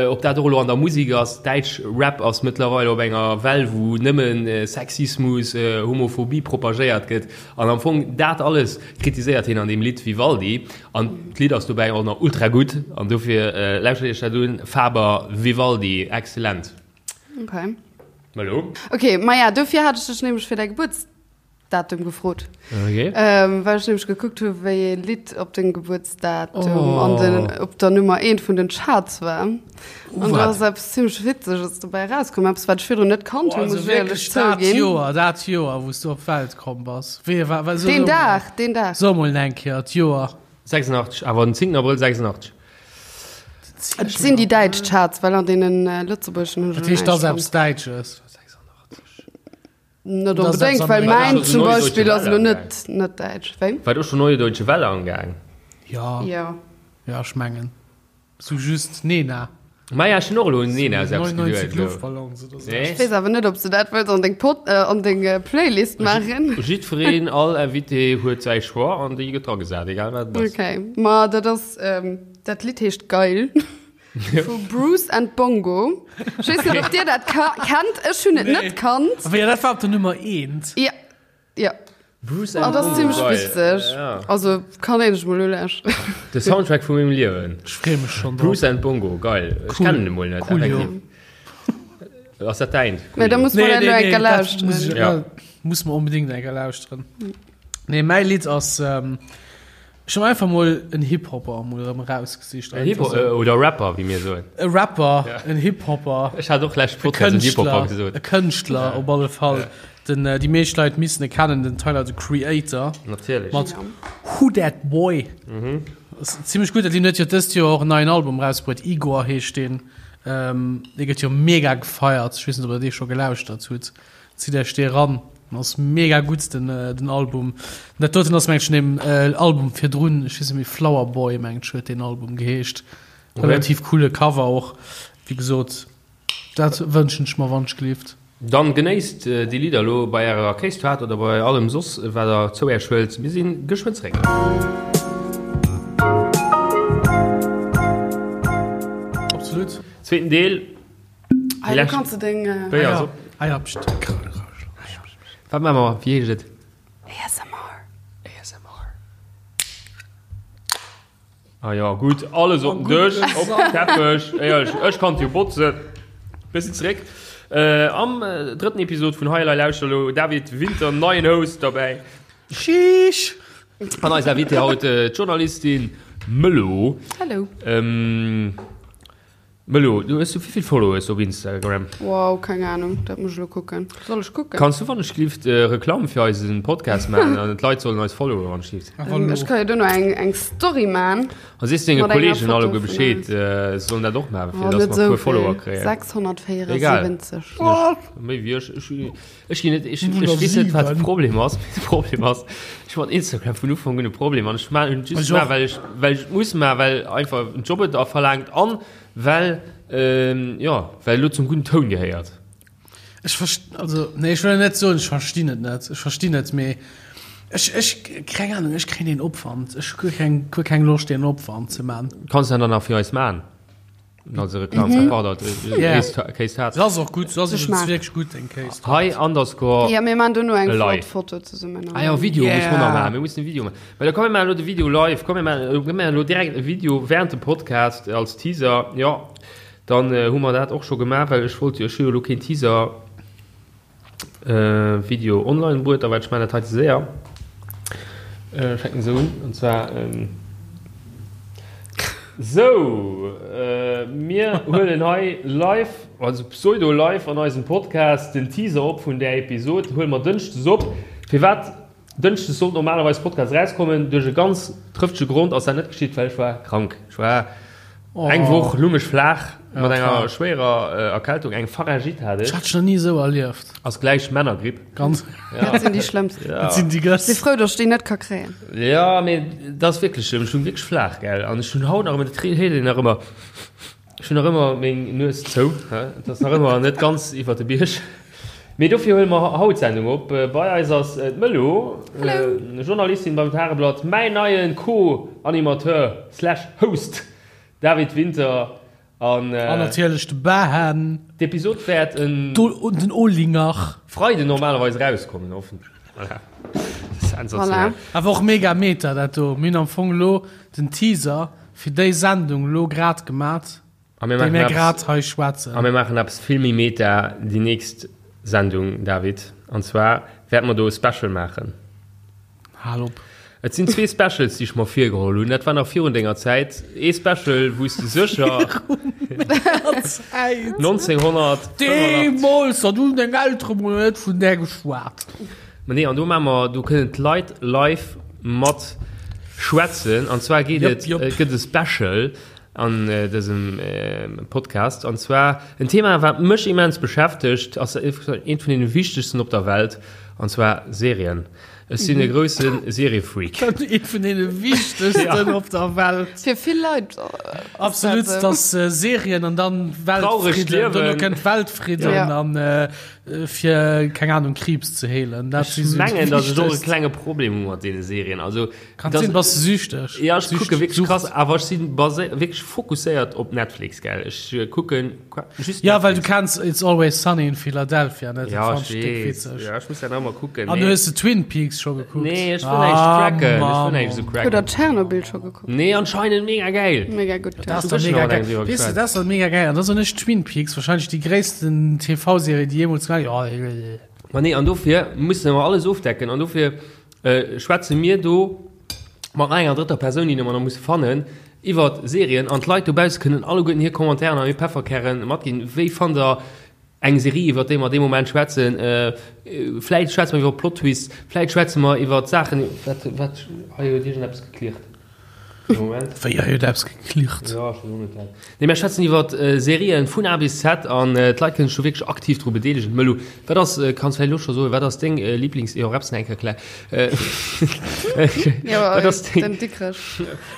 ob dat och elo an der Musek ass, däitsch Rap ass mëttlerweil op enger Well, wou nëmmen Sexismus, Homophobie propagéiert gëtt an am Fong dat alles kritiséiert hien an deem Lidd Vivaldi an d'Lidd ass dobäi och nach ultra gutt an dofir lauschtert iech dat un, Faber, Vivaldi, excellent. Okay. Hallo? Okay, maja, dofir hat ech dech nämlech fir däi Gebuertsdatum gefrot. Okay. Ähm, well ech nämlech gekuckt hu wéi ee Lidd op dengem Gebuertsdatum oh. an den, op der Nummer 1 vun den Charts war. An da Wat? ass eppes zimmlech Witzeges dobäi erauskomm, eppes wat ech virdrun net kannt Oh, hunn, also muss ech éierlech wierklech dat zouginn. Joer, dat Joer, wou s du op d'Welt komm bass. Wéi war, war, so, Deen so, Dag, deen Dag. So mol eng Kéier d'Joer. 86, awer den 10. Abrëll 86. Et sinn déi däitsch Charts, well an deenen lëtzebuergeschen hunn ech Dat heescht, dat ass näischt eppes fonnt. Däitsches. Net Dat ass onbedéngt, eppes well mäin Amerikanesches. zum Neue Deutsche Beispill ass Welle elo amgaang. net net däitsch. Wéi? War do schon Neue Deutsche Welle amgaang? Ja, Jo. ja, ech mengen. Sou just Nena. Maja, ech hunn och elo un een aus eppes 99 geduet elo. Luftballons oder sou. Nee. Ech weess awer net, ob s de dat wëlls an deng Pod, äh, an deng Playlist maachen. Jiddwereen, all Invité huet säi Choix an déi gëtt dragesat, egal wat et ass. Okay, ma dat ass, ähm, dat Lidd heescht Geil vu Bruce and Bongo. Ech weess net, ob dir dat ka kennt. Ech hunn et net kannt. Awer jo, dat war op der Nummer eent. Ja, ja. Bruce Ah, and dat ass Bongo, zimmlech geil. witzeg. Ja. Also kann een sech mol ulauschteren. De Soundtrack vu mengem Liewen. Ech freeë mech schonn drop. Bruce and Bongo, geil. Ech Cool. kennen e mol net, Coolio. effektiv. Ass dat däint? Mä da Coolio. muss man dat elo eng Kéier dat muss lauschteren. ich, Ja. ja. muss man unbedingt eng Kéier lauschteren. Nee, mäi Lidd ass, ähm, ech hunn einfach mol en Hip-Hopper mol erëm erausgesicht. En Hip-Hop, äh, oder Rapper, wéi mir soen. E Rapper, en Hip-Hopper. Ech hat och lescht E Podcast en Hip-Hopper Kënschtler, gesot. e Kënschtler op alle Fall. Den, äh, déi meescht Leit missen e kennen, den Tyler, the Creator. Natierlech. Mat Who Dat Boy. Mhm. Ass zimmlech gutt. Deen huet jo dëst Joer och en neien Album erausbruet, Igor heescht deen. Ähm, dee gëtt jo mega gefeiert. Ech weess net, ob der dee scho gelauschtert hutt. Zitt Iech dee ran. Ass mega gutt den, äh, den Album. Dat doten ass mengt ech vun deem äh, Album virdrun, ech weess net méi, Flower Boy mengt ech huet deen Album geheescht. Okay. Relativ coole Cover och. Wéi gesot, dat wënschen ech mer wannschgelift. Dann genéisst déi Lidder elo bei ärer Kéistoart oder bei allem soss wat der zou äech huelt. Mir si geschwënn zeréck. Absolut. Zweeten Deel. Hei, do kanns de deng. Béier ass op. Ah ja, pst. Wat maache mer? Wéi heescht et? ASMR. ASMR. Ah ja, gutt, alles op den Dësch, op den Teppech. Éierlech, ech kann jo botzen. Mir sinn zeréck am drëtten Episod vun Hei Elei Lauschter elo. David Winter, neien Host derbäi. Sheesh! An eis Invitée haut, d'Journalistin Mëllo. Hallo. Mëllo, du hues du wéivill Followers op Instagram? Wow, keng Ahnung, dat muss ech elo kucken. Soll ech kucken? Kanns du wannechgelift Reklamm fir eisen Podcast maachen an d'Leit sollen eis followen wannechgelift? Ech ka jo duerno eng eng Story man. A sees denge Mat enger Kollegen Foto alleguer vun Bescheed, eis. se sollen dat och maachen, fir Oh, dass net mer e esou puer Follower vill. kréien. 674. Egal. Méi wéi ech. Ech ech ginn net, ech ech weess net wat de Problem ass. De Problem ass, ech hu mat Instagram vun Ufank un e Problem an ech maan en just Ech och. gemaach, well ech well ech et muss maachen, well einfach den Job et verlaangt an well jo well elo zum gudden Toun gehéiert. Ech verst also nee ech wëll net soen ech verstinn et net, ech verstinn et, mee ech ech keng Ahnung, ech kréien deen Opwand, ech hu guer keng guer keng Loscht deen Opwand ze man. Kanns de dann nach fir eis maan? Also Reklam mm -hmm. pardon, yeah. Case Hart. Das och gut, das ist wirklich gut den Case. Hi underscore. Ja, mir machen do eng live. Foto zusammen. Ah ja, Video yeah. muss man noch machen. Wir müssen ein Video machen. Weil da kommen wir de Video live, kommen wir wir direkt e Video während dem Podcast als Teaser. Ja, dann äh, hu mer dat och schon gemacht, weil ich wollte jo lo kein Teaser Video online bruet, a well ech man dat hei ze séier. Fänken se un, an zwar Sou, mir huelen hei live, also pseudo live an eisem Podcast den Teaser op vun där Episod. Huele mer dënschdes op. Firwat dënschdes sollt normalerweis Podcast erauskommen? Duerch e ganz trëftege Grond ass dat net geschitt, well ech war krank. Ech war Eng Woch lung ech flaach mat enger schwéierer Erkältung, eng Pharyngite hat ech. Ech hat dech nach ni esou erlieft. Ass gläich Männergripp. Ganz. Dat sinn déi schlëmmst. Dat sinn déi Ech si gëss. frou, datt ech déi net ka kréien. Jo, mee dat ass wierklech schlëmm. Ech lung wierklech flaach, gell. An ech hunn haut nach ëmmer, dat héiert een nach ëmmer, ech hunn nach ëmmer meng Nues zou. Et ass nach ëmmer net ganz iwwer de Bierg. Mee dofir huele mer haut d'Sendung op. Bei eis ass d'Mëllo, Journalistin beim Tageblatt, mäin neie Co-Animateur slash Host David Winter an. An natierlech de Bahan. D'Episod wäert en. Den Olinger. Freiden normalerweis erauskommen, hoffentlech. Voilà. Sensationell. Awer och mega meta dat do. Mir hunn am Fong elo den Teaser fir déi Sendung elo grad gemat. A mir Déi maachen mir eppes, grad hei schwätzen. a mir maachen eppes vill méi meta déi nächst Sendung, David. An zwar wäerte mer do e Special maachen. Hal op. Et sinn zwee Specials, déi ech mer virgeholl hunn. Dat war nach virun denger Zäit. Ee Special, wou s de sécher 1985. Deemools, dat hunn deng Eltere mol net vun där geschwat. Ma nee, an do maache mer, do kënnen d'Leit live mat schwätzen. An zwar geet Jop, et, jop. et gëtt e Special an dësem Podcast an zwar en Thema wat mech immens beschäftegt, ass eent vun den wichtegsten op der Welt. An zwar Serien. Ech sinn e grousse Seriefreak. Ee vun deene wichtegsten op der Welt. Fir vill Leit. Absolut, dass Serien an dann Weltfridden, dono kënnt Weltfridden an fir, keng Ahnung, Kriibs ze heelen. Dat si sou déi wichtegst. Ech mengen, dass ech och e klenge Problem hu mat deene Serien. Also, Kann sinn, bass de süchteg? Ja, ech kucke wierklech krass, awer ech si wierklech fokusséiert op Netflix, gell. Ech kucken just Ja, well du kenns It's Always Sunny in Philadelphia net? Ja, ech weess. Ja, ech muss dat nach emol kucken. An hues de Twin Peaks scho gekuckt? Nee, ech wëll näischt cracken. Ech wëll näischt esou cracken. Hutt der Tschernobyl scho gekuckt? Nee, anscheinend mega geil. Mega gutt, ja. Dat ass doch mega geil. Weess de, dat ass doch mega geil. An da soen ech Twin Peaks, wahrscheinlech déi gréissten TV-Serie, déi jeemools gemaach ginn. Ma nee, an dofir musse mer alles ofdecken. An dofir schwätze mir do mat nach enger drëtter Persoun, déi mer nach musse fannen, iwwert Serien. An d'Leit dobausse kënnen alleguerten hir Commentairen an hir Pefferkäre matginn. Wéi fannt der eng Serie, iwwert déi mer dee Moment schwätzen? Vläit schwätze mer iwwer Plot-Twists, vläit schwätze mer iwwert Saachen. Wat, wat, hei huet iergendeppes geklirrt. Moment. Wéi, hei huet eppes geklirrt? Jo, ech weess och net wat. Nee, mir schwätzen iwwer Serien vun A bis Z an d'Leit kënnen sech do wierklech aktiv dru bedeelegen. Mëllu, wat ass, kanns vläicht elo scho soen, wat ass deng Lieblings-, jo, Reps nach eng Kéier klä. Jo, Wat ass deng, den Dikrech.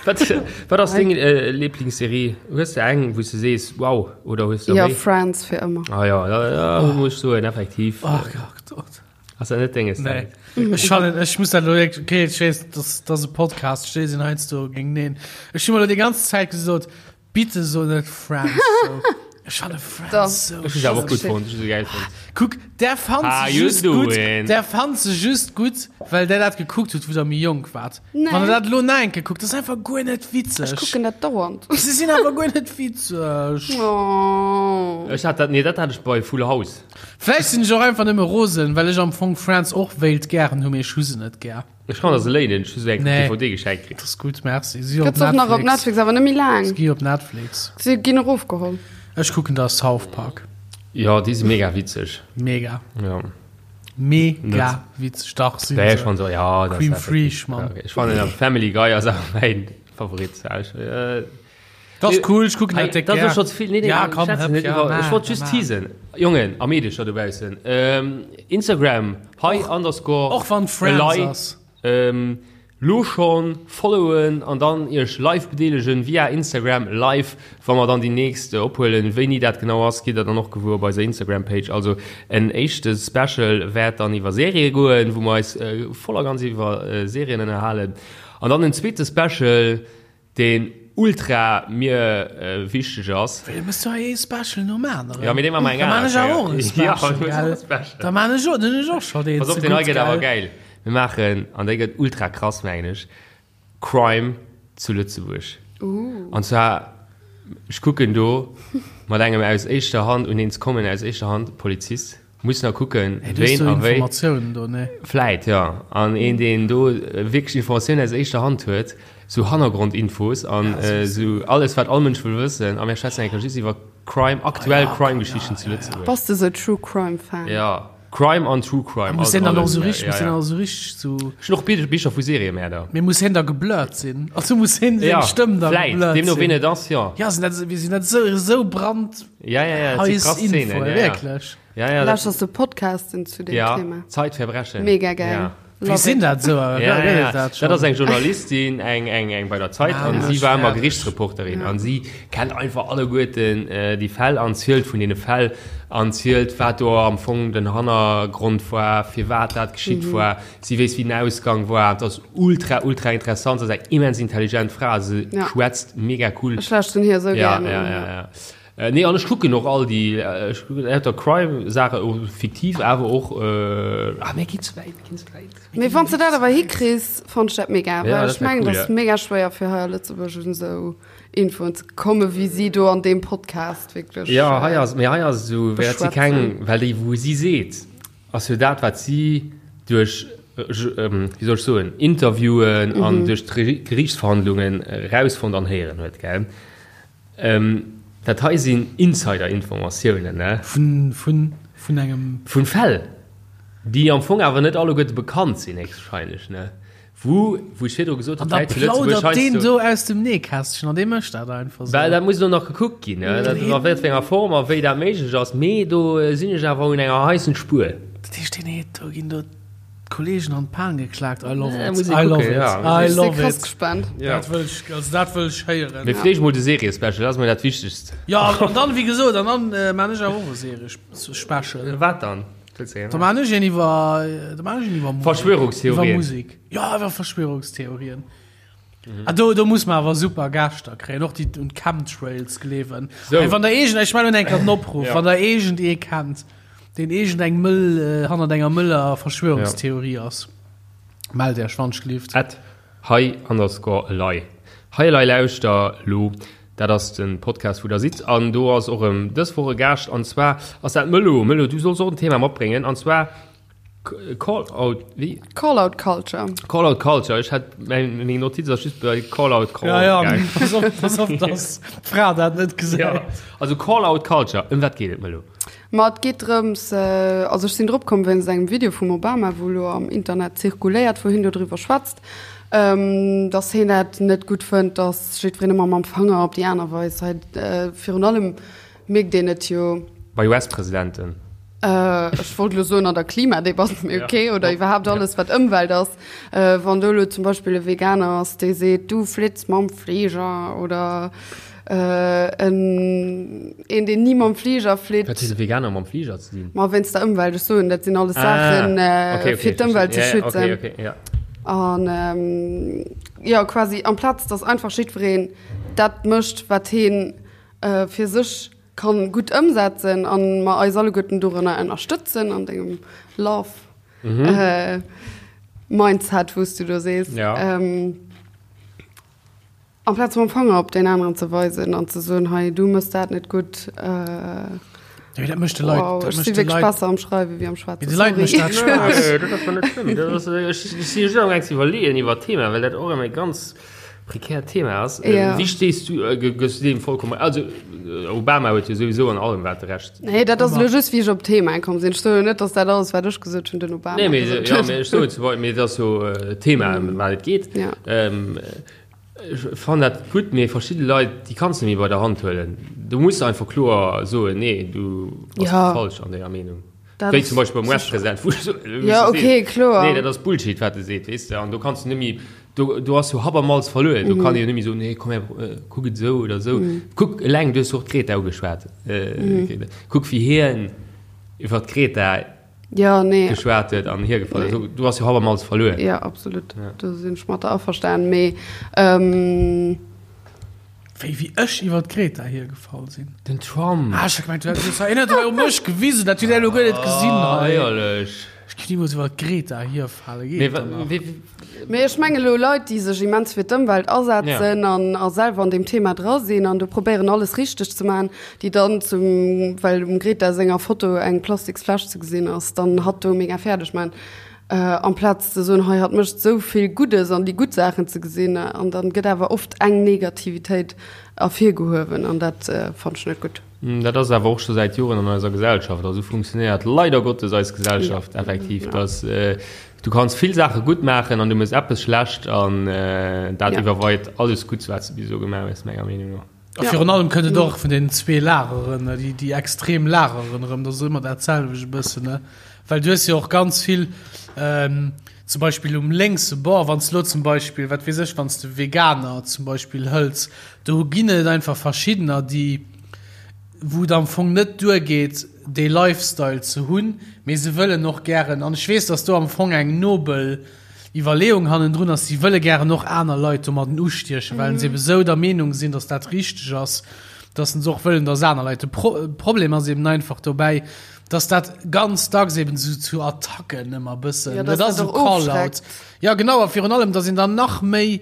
wat, wat ass deng Lieblingsserie? Hues de eng, wou s de sees, wow, oder hues de Jo, méi? Friends fir ëmmer. Ah jo, da, da muss ech soen, effektiv. Ach Gott. Ass dat net denges? Nee. Ech fannen, ech muss dat elo wierklech, okay, ech weess, dass dass e Podcast, ech sinn heiansdo géinteneen. Ech hu mer elo déi ganz Zäit gesot, bitte so net Friends sou. Ech fanne Friends sou Ech hu se awer och gutt fonnt, ech hu se gäil fonnt. Kuck, där fannt How se you just gutt, doing? där fannt se just gutt, well där dat gekuckt hutt, wou der méi jonk waart. Nee. Wann der dat elo nach eng Kéier kuckt, dat ass einfach guer net witzeg. Ech kucken dat dauernd. Se sinn awer guer net witzeg. Oh. Ech hat dat, nee, dat hat ech bei Full House. Vläicht sinn ech och einfach nëmme rosen, well ech am Fong Friends och wéilt gären hu, mee ech hu se net gär. Ech kann der se léinen, ech hu se eng Nee. DVD geschenkt kritt. Dat ass gutt, merci. Si op Gëtt se och nach op Netflix, awer net méi laang. Si gi op Netflix. Si ginn erofgeholl. Ech kucken da South Park. Jo, déi si mega witzeg. Mega. Jo. Mega Net. witzeg, dach si Ja, ech se. fannen se, ja, dat Cream ass effektiv. Fraiche, Mann. Ja, okay. Ech fannen awer Family Guy ass awer mäin Favorit. Ja, ech, äh, Dat ass cool, ech kucken Hey, dat déck dat ass gär. scho ze vill. Nee, nee, Ja, komm, schwätzen hëpp, net ja, iwwer. ma, Ech wollt just ma. teasen. Jongen a Meedecher dobaussen. Ähm, Instagram, hei underscore Och wann Friends elei. ass. Ähm, lo schon followen an dann iech live bedeelegen via Instagram live, wa mer dann déi nächst ophuelen. Wéini dat genau ass, gitt der dann och gewuer op eiser Instagram Page. Also en éischte Special wäert dann iwwer Serië goen, wou mer eis voll a ganz iwwer Serien ënnerhalen. An dann en zweete Special, Deen ultra mir wichteg ass. Wéi, mëss du hei ee Special nom aneren? Ja, mee dee maache mer eng Da maan aner ech awer och Kéier. e Special, Ja, du hues gell? och e Special. Da maan ech och, dann hunn ech och scho deen Pass op, ze deen hei gutt, gëtt awer gell? gäil. Mir maachen, an dee gëtt ultra krass, mengen ech, Crime zu Lëtzebuerg. An zwar, ech kucken do mat engem aus éischter Hand, un een ze kommen aus éischter Hand, Polizist. Muss nach kucken, Hey, du hues ween do a wéi. Informatiounen do, ne? Vläit, jo. An een, deen do wierklech Informatiounen aus éischter Hand huet, sou Hannergrondinfos an sou alles, wat all Mënsch wëll wëssen. A mir schwätzen eng Kéier just iwwer Crime, aktuell Crime-Geschichten zu Lëtzebuerg. Bass de sou True Crime Fan? Jo, Crime an True Crime. Muss hien dann och sou richteg, Ja, muss hien ja. dann och sou richteg sou. Ech hunn och Bicher vu Seriemäerder. Mee muss hien da geblurrt sinn? Also muss hien seng Ja, Stëmm da vläit, geblurrt deemno sinn? ween et ass, jo. Ja, sinn dat, wéi sinn dat sou, sou brand Ja, ja, ja, dat si heiß krass Infoen, Szenen, ja, ja. wierklech. Ja, ja, Lauschters du Podcasten zu dem ja, Thema? Zeitverbrechen. Mega geil. Ja. Wéi sinn dat sou? Ja, ja, ja. Dat, dat ass eng Journalistin, eng, eng, eng bei der Zeit ah, an si war ëmmer Gerichtsreporterin ja. an si kennt einfach alleguerten äh, déi Fäll an zielt vun deene Fäll an zielt, wat do am Fong den Hannergrond war, firwat dat geschitt mhm. war. Si weess, wéi den Ausgang war. Dat ass ultra, ultra interessant. Dat ass eng immens intelligent Fra. Se ja. schwätzt mega cool. Ech lauschten hir sou ja, gern. Ja, ja, ja. Nee, an ech kucken och all déi, ech kucken lauter Crime-Saachen, och fiktiv, awer och, ah, mir ginn ze wäit, mir ginn ze wäit. Mee wann s de dat awer hikriss, fannt ech dat mega, Ja, well dat ech wär mengen, cool, et ass ja. mega schwéier fir hei a Lëtzebuerg un esou Infoen ze kommen, wéi si do an deem Podcast wierklech Ja, hei ass, mee hei ass et esou, wäert si keng, beschwätzen. well déi, wou si seet, ass jo dat, wat si duerch, wéi soll ech soen, Interviewen an duerch d'Geriichtsverhandlungen erausfonnt an héieren huet, gell? Dat hei sinn Insider-Informatiounen, ne? Vun, vun, vun engem. Vun Fäll, déi am Fong awer net alleguerte bekannt sinn, héchstwahrscheinlech, ne? Wou, wou ech virdru gesot An hunn, da d'Leit zu Lëtzebuerg plaudert deen heiansdo. do aus dem Nähkästchen an dee mécht dat einfach Well esou. dat muss elo nach gekuckt ginn, ne? Dat, a wat fir enger Form a wéi dat méiglech ass. Mee do sinn ech awer un enger heissen Spuer. Dat heescht, deen heet, do ginn do. D'Kollegen an d'Pan geklaakt, I love Ja, it, muss ich I love gucken, it, ja. I Ech si love krass it. gespannt. Ja. Dat wëll ech, also dat wëll ech héieren. Mee fleeg mol de Serie-Special, dat ass mol dat Wichtegst. Ja, an dann, wéi gesot, an dann äh, maan ech awer och e Serie-Special. Wat dann? Wëlls de Da maan ech een iwwer, da maan ech een iwwer Musek. Verschwörungstheorien. Iwwer Musek. Ja, iwwer Verschwörungstheorien. Ah, do, do muss man awer super Gäschter kréien, och déi un Chemtrails gleewen. So. Hey, wann der eegent, ech mellen eng Kéier den Opruff, Ja. wann der eegent ee kennt, deen eegent eng mëll, äh, hannert enger mëller Verschwörungstheorie ass, mellt Iech, wann ech At hei underscore elei. Hei elei lauschter lo, dat ass den Podcast wou der sidd an do ass och erëm dës Woch e Gaascht an zwar ass dat d'Mëllo. Mëllo, du solls och en Thema matbréngen an zwar Call out, wéi? Call out Culture. Call out Culture. Ech hat meng meng Notiz ass just bei Call out Call. Ja, ja, gaangen. pass op, pass op, dass d'Fra dat net gesäit. Ja. Also Call out Culture, ëm wat geet et Mëllo? Ma et geet drëms, also ech sinn drop komm wéinst engem Video vum Obama, wou elo am Internet zirkuléiert, wou hien dodriwwer schwätzt, dass hien dat net gutt fënnt, dass jiddwereen ëmmer mam Fanger op déi aner weist. Hei virun allem mierkt een et jo. Bei US-Presidenten. Ech wollt elo soen an der Klimadebatt, mee ok, oder iwwerhaapt alles wat Ëmwelt ass. Wann do elo zum Beispill e Veganer ass, dee seet, du flitts mam Fliger oder en een, deen ni mam Fliger flitt. Wat huet e Veganer mam Fliger ze dinn? Ma wéinst der Ëmwelt, ech soen, dat sinn alles Saachen, fir d'Ëmwelt ze schützen. An jo, quasi amplaz datt einfach jiddwereen dat mécht, wat heen fir sech kann gutt ëmsetzen an mer eis alleguerten dorënner ënnerstëtzen an dengem Love mhm. Mindset wous du do sees. Ja. Ähm, amplaz mam Fanger op den aneren ze weisen an ze soen hei du mëss dat net gutt. Äh, Ja, dat mécht de Leit, wow, dat ech mécht si de wierklech Leit, besser am Schreiwe wéi am Schwätzen. de Leit mécht dat Spaass. Nee, dat ass net schlëmm. Dat ass, ech, ech si just am gaang ze iwwerleeën iwwer d'Thema, well dat och ëmmer e ganz Prekärt Thema ass. Ja. Wéi stees du, gëss du deem vollkommen, also Obama huet jo souwisou an allem wat de Recht. Nee, dat ass elo just wéi ech op d'Thema komm sinn. Ech soen jo net, datt dat alles wat ech gesot hunn den Obama Nee, mee, gesot ja, huet. mee ech soen zum Beispill, mee et ass jo d'Thema ëm wat et geet. Ja. Ech fannen dat gutt, mee verschidde Leit, déi kanns de net méi bei der Hand huelen. Du muss einfach kloer soen, nee, du bass Ja. falsch an denger Meenung. Dat Wéi ass zum Beispill beim sicher. US-President, wou ech so, wou Ja, du okay, sees, kloer. Nee, dat ass Bullshit, wat e seet, weess de. An do kanns du net méi, do, do ass jo Habermals verluer. Do kann ee jo net méi soen, nee, komm her, kuck et esou oder esou. Kuck, eleng, du hues jo och d'Greta ugeschwat, Greta. Kuck, wéi hien iwwer d'Greta Ja, nee. geschwat huet an hiergefall ass. Do, do ass jo Habermals verluer. Ja, absolut. Do sinn ech mat der averstanen. Mee, ähm. Wéi, wéi ech iwwer d'Greta hiergefall sinn. Den Trump. Ah, ech hat gemengt, du hätt hei net hei op mech gewisen, dat hutt der elo guer net gesinn Ah, hei. éierlech. Ech géif nimools iwwer d'Greta hierfale, Mee geet wa, dann nach. wéi, wéi. Mee ech menge lo Leit, déi sech immens fir d'Ëmwelt asetzen an a selwer an deem Thema dra sinn an do probéieren alles richteg ze maachen, déi dann zum, well um Greta senger Foto eng Plastiksfläsch ze gesinn ass, dann hatt do mega fäerdeg maachen. Amplaz ze soen, hei hatt mécht esou vill Guddes an déi gutt Saachen ze gesinn. An dann gëtt awer oft eng Negativitéit ervirgehuewen an dat fannen ech net gutt. Dat ass awer och scho säit Joren an eiser Gesellschaft. Also esou funktionéiert leider Gottes eis Gesellschaft effektiv, dass du kanns vill Saache gutt maachen an du méchs eppes schlecht an dat iwwerweit alles Gutts, wat s de bis elo gemaach hues, menger Meenung no. A virun allem kënnt et och vun den zwee Lageren, déi, déi extrem Lageren erëm, dat ass ëmmer dat selwecht e bëssen, ne? Well du hues jo och ganz vill, zum Beispill um lénkse Bord, wann s de elo zum Beispill, wat weess ech, wann s de Veganer zum Beispill hëls, do ginn et einfach verschiddener, déi, wou et am Fong net duergeet, dee Lifestyle ze hunn, mee se wëllen och gären, an ech weess, dass do am Fong eng nobel Iwwerleeung hannendrun ass, si wëlle gären och aner Leit domadden ustiechen, well se ebe sou der Meenung sinn, datt dat richteg ass, datt se och wëllen, datt aner Leit. De Pro Problem ass eben einfach dobäi, datt dat ganz dacks eben sou zu Attacken ëmmer bëssen, Ja, dat datt ass dat esou och Call-out. ofschreckt. Ja genau, a virun allem, datt een dann nach méi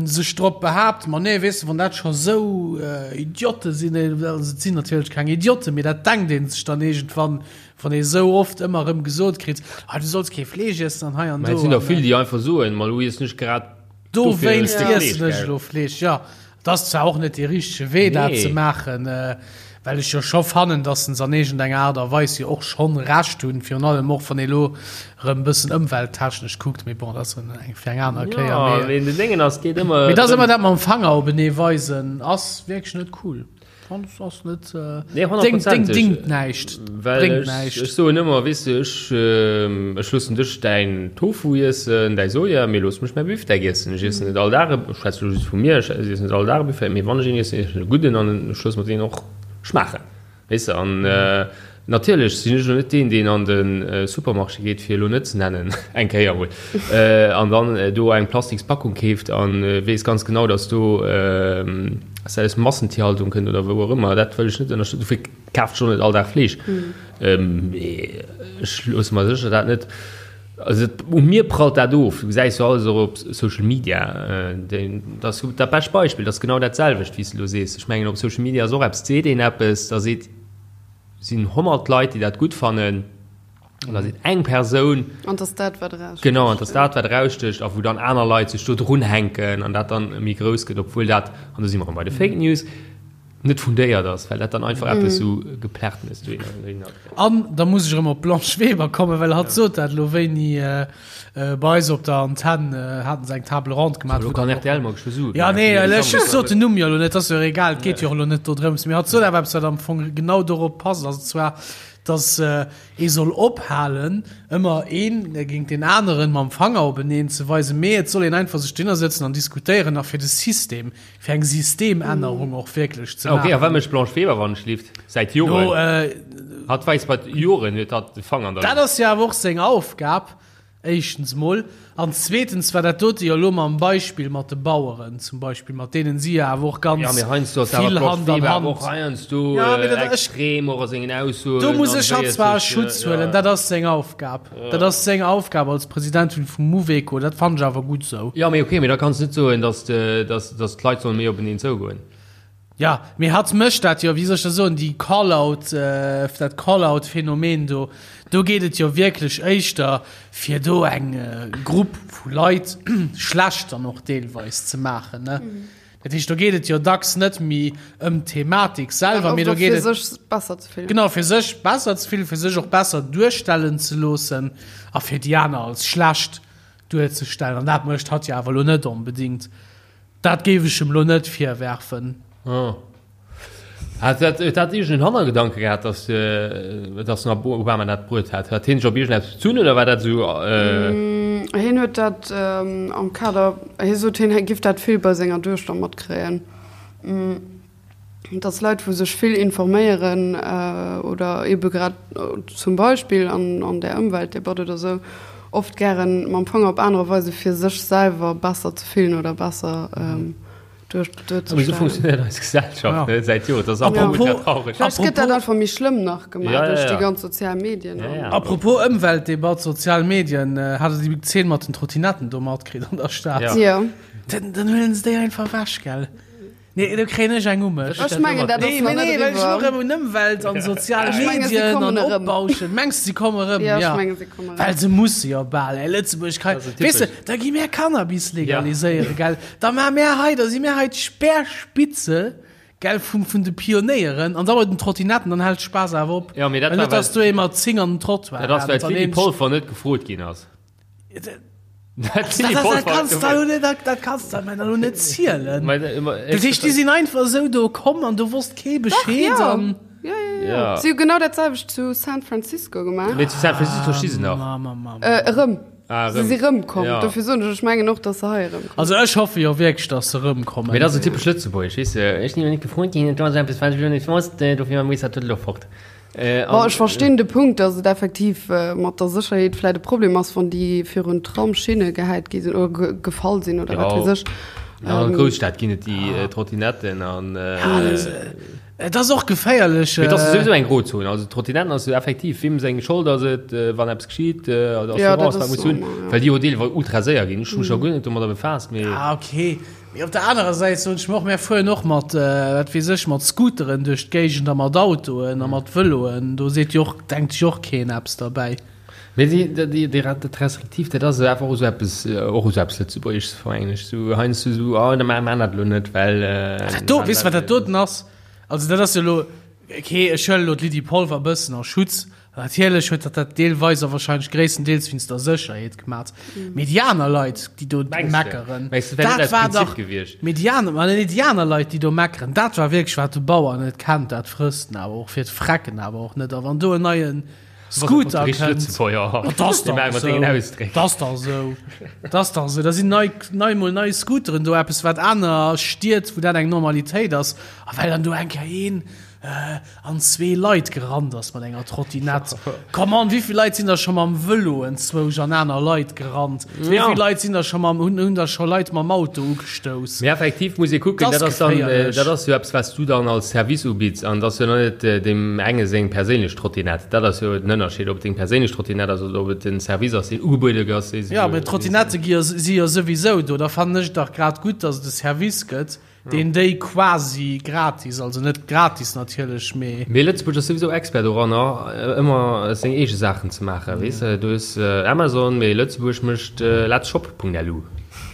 sech drop behaapt, ma nee, weess de, wann dat scho sou Idiote sinn, also et sinn natierlech keng Idioten, mee dat denkt ee sech dann iergendwann, Wann ee sou oft ëmmer erëm gesot kritt, ah, du solls kee Fleesch iessen an hei an Mä et do. sinn der An, vill, déi einfach soen, ma elo iessen ech grad dofir e Dowéinst Stéck iessen Fleesch, ech gell? elo Fleesch. Jo, et ass zwar och net dee richtege Wee, dat Nee. ze maachen, well ech jo scho fannen, datt se an iergendenger Aart a Weis jo och schonn Recht hunn, virun allem och, wann ee elo erëm e bëssen ëmwelttechnesch kuckt. Mee bon, dat ass eng fir eng aner Kéier. Ja, Mee mee den Déngen ass, geet ëmmer mee et ass drëm. ëmmer dat mam Fanger openee weisen, ass wierklech net cool. Ass net Nee, honnertprozenteg. Dingt näischt, Well bréngt ech, näischt. ech soen ëmmer, weess de, ech, ech loossen dech däin Tofu iessen, däi Soja, mee looss mech mäi Bifdeck iessen. Ech iessen net all Dag e, ech schwätze elo just vu mir, ech iessen net all Dag e Bifdeck, mee wann ech een iessen, iessen ech e gudden an ech loosse mer deen och schmaachen. Weess de, an natierlech sinn ech elo net deen, deen an de Supermarché geet, fir elo net ze nennen, eng Kéier emol, an dann do eng Plastikspackung keeft a weess ganz genau, datt do dass dat aus Massentierhaltung kënnt oder wou och ëmmer. Dat wëll ech net ënnerstëtzen. Dofir kafen ech och net all Dag Fleesch. Mee ech loosse mer sécher dat net, also u mir prallt dat of. Du gesäis jo alles och op Social Media. Dat ass dat bescht Beispill, dat ass genau dat selwecht, wéi s de elo sees. Ech mengen, op Social Media ass och eppes, seet een eppes, da seet, sinn 100 Leit, déi dat gutt fannen, an da seet eng Persoun, An dass dat, wat erausstécht. Genau, an dass dat, wat erausstécht, a wou dann aner Leit sech do drunhänken an dat dann méi grouss gëtt, obwuel dat, an do si mer erëm bei de Fake News, net fundéiert ass, well dat dann einfach eppes esou Geplärtenes dohinner gëtt. An da muss ech erëm op d'Blanche Weber kommen, well hatt sot dat elo wéini bei eis op der Antenn haten se eng Table ronde gemaach. Elo kann rtl mer geschwë soen. Ja, nee, ech sot den Numm jo elo net, ass jo och egal, et geet jo och elo net dodrëms. Mee hatt sot awer eppes, wat am Fong genau dorop passt, an zwar, dass ee soll ophalen, ëmmer een géint deen aneren mam Fanger openeen ze weisen, mee et soll een einfach sech dohinner sëtzen an diskutéieren a fir de System, fir eng Systemännerung och wierklech ze maachen. Ok, a wat mécht d'Blanche Weber, wann ech lift? Säit Joren. Hatt weist mat Joren huet hatt de Fanger an der Luucht. Dat ass jo awer och seng Aufgab. Éischtens mol. An zweetens war dat dote jo elo mam Beispill mat de Baueren zum Beispill, mat deenen si jo awer och ganz Ja, mee heiansdo ass awer vill d'Blanche Hand an Weber awer Hand. och heiansdo Ja, mee dat, ech, extrem och a sengen Aussoen. do muss an ech hatt wéi et zwar a sech, Schutz ja. huelen, dat ass seng Aufgab. Dat ass seng Aufgab als Presidentin vum Mouveco, dat fannen ech awer gutt esou. Ja, mee okay, mee da kanns de net soen, dass de, dass, dass d'Leit solle méi openeen zougoen. Ja, mee hatt mécht dat jo, wéi soll ech dat soen, déi Call-out, dat Call-out-Phänomen do, do geet et jo wierklech éischter fir do eng Grupp vu Leit schlecht dann och deelweis ze maachen, ne? Dat heescht, do geet et jo dacks net méi ëm d'Thematik selwer, mee do geet et. Fir sech besser ze fillen. Genau, fir sech besser ze fillen, fir sech och besser duerstellen ze loossen a fir déi aner als schlecht duerzestellen. An dat mécht hatt jo awer elo net onbedéngt. Dat géif ech em lo net virwerfen. Oh. Hat dat, huet dat iergend en Hannergedanke gehat, dass, dass den Obama dat bruet hat? Hat hien sech op iergendeppes bezunn oder war dat esou? Hien huet dat am Kader, hie sot, hien giff dat vill bei senger Duechter matkréien. Dass Leit, wou sech vill informéieren oder ebe grad zum Beispill an där Ëmweltdebatt oder sou, oft gären mam Fanger op anerer weise fir sech selwer besser ze fillen oder besser duerzestellen. Mee sou funktionéiert eis Gesellschaft ne säit Joren. Dat ass einfach ultra traureg. Vläicht gëtt dat einfach méi schlëmm nach gemaach duerch déi ganz sozial Medien. Apropos Ëmweltdebatt, sozial Medien, hat der déi Zeen mat den Trottinetten do matkritt an der Stad? Jo. Dann huelen se déi einfach ewech, gell? Nee, do kréien ech eng u mech. Ech mengen, dat ass Nee, nach nee, net well ech eriwwer. elo rëm un Ëmwelt an sozial Ech mengen, si Medien kommen an erëm. Opbauschen. Mengs de, si komme rëm? Ja, ech Ja. mengen, si kommen erëm. Well se musse jo bal, ey. Lëtzebuerg kann, Dat ass weess de, typesch. da gi mär Cannabis legaliséieren, gell? Da maache mär hei, da si mär hei d'Speerspitze, gell, vum, vun de Pionéieren. An da bei den Trottinetten, dann hält Spaass awer op. Ja, mee dat Well war, net, dass well- du ee mat 10 an den Trottoir Dat ass, well rennt an d'Lydie een- Polfer net gefrot ginn ass. Dat, dat, dat kanns du elo net, dat, dat kanns du mir elo net zielen. Dat heescht, déi sinn einfach esou do komm an do wosst kee Bescheed. Dach, ja. An Ja, ja, ja. Ja. Si hu genau dat selwecht zu San Francisco gemaach. Mee zu San Francisco sti se nach. Ma, ma, ma, ma. Äh, erëm. Ah, Se erëm. si rëmkomm. Ja. Dofir soen ech, ech mengen och, datt se hei erëmkommen. Also ech hoffe jo wierklech, dass se rëmkommen. Mee dat ass esou typesch lëtzebuergesch, weess de. Ech sinn jo net gefrot ginn, et ass eppes, wat ech elo net wosst, dofir muss dat elo fort. Bon, ech verstinn de Punkt, datt et effektiv mat der Sécherheet vläit e Problem ass, wann déi virun d'Tramschinne gehäit gi sinn oder gefall sinn oder wat weess ech. Ja, an Grousstad ginn et déi Trottinetten an. Et ass och geféierlech. Mee et ass souwisou eng Grozon. Also d'Trottinetten ass jo effektiv, wiem seng Schold ass et, wann eppes geschitt, oder Assurance, wat muss hunn, well déi jo deelweis ultra séier ginn. Ech hu mech nach guer net domadder befaasst, mee. Ah, okay. Mee op der anerer Säit soen ech mer och, mär fueren och mat, wat weess ech, mat Scooteren duerch d'Géigend a mat Autoen a mat Vëloen. Do seet jo och, denkt sech och keen eppes derbäi. Mee déi, déi, déi, dat Restriktiivt, dat ass einfach och esou eppes, och esou eppes Lëtzebuergesches, mengen ech. Esou heiansdo esou, oh, da maache mer dat elo net, well. Dat do, weess de, wat dat doten ass? Also dat ass jo elo, okay, ech huelen elo d'Lydie Polfer e bëssen a Schutz. Natierlech huet dat dat deelweis a wahrscheinlech gréisstendeels wéinst der Sécherheet gemat. Mee déi aner Leit, déi do meckeren, dat war dach, mee déi aner, ma nee, déi aner Leit, déi do meckeren, dat war wierklech, wat de Bauer net kennt, dat frësst en awer och fir d'Frecken awer och net. A wann do en neie Scooter kënnt, dat ass dach esou, dat ass dach esou, dat ass dach esou, da sinn nei, nei mol nei Scooteren do, eppes wat aner Stied, wou dat eng Normalitéit ass, a well dann do eng Kéier een an zwee Leit gerannt ass mat enger Trottinett. Come on, wéivill Leit sinn da scho mam Vëlo enzwousch an aner Leit gerannt? Ja. Wéivill Leit sinn da scho mam, hunn, hunn da scho Leit mam Auto ugestouss? Mee effektiv muss ee kucken, dat ass dann, dat ass jo eppes, wat s du dann als Service ubidds an dat ass jo net deem enge seng perséinlech Trottinett. Dat ass jo den Ënnerscheed, ob et deng perséinlech Trottinett ass oder ob et en Service ass, deen ugebuede gëtt. Ja, mee d'Trottinette gi jo, si jo souwisou do. Da fannen ech et dach grad gutt, datt et e Service gëtt, Deen déi quasi gratis, also net gratis natierlech, mee. Mee Lëtzebuerg ass souwisou Expert doranner, ëmmer seng eege Saachen ze maachen, weess de. Du hues Amazon, mee Lëtzebuerg mécht Letzshop.lu,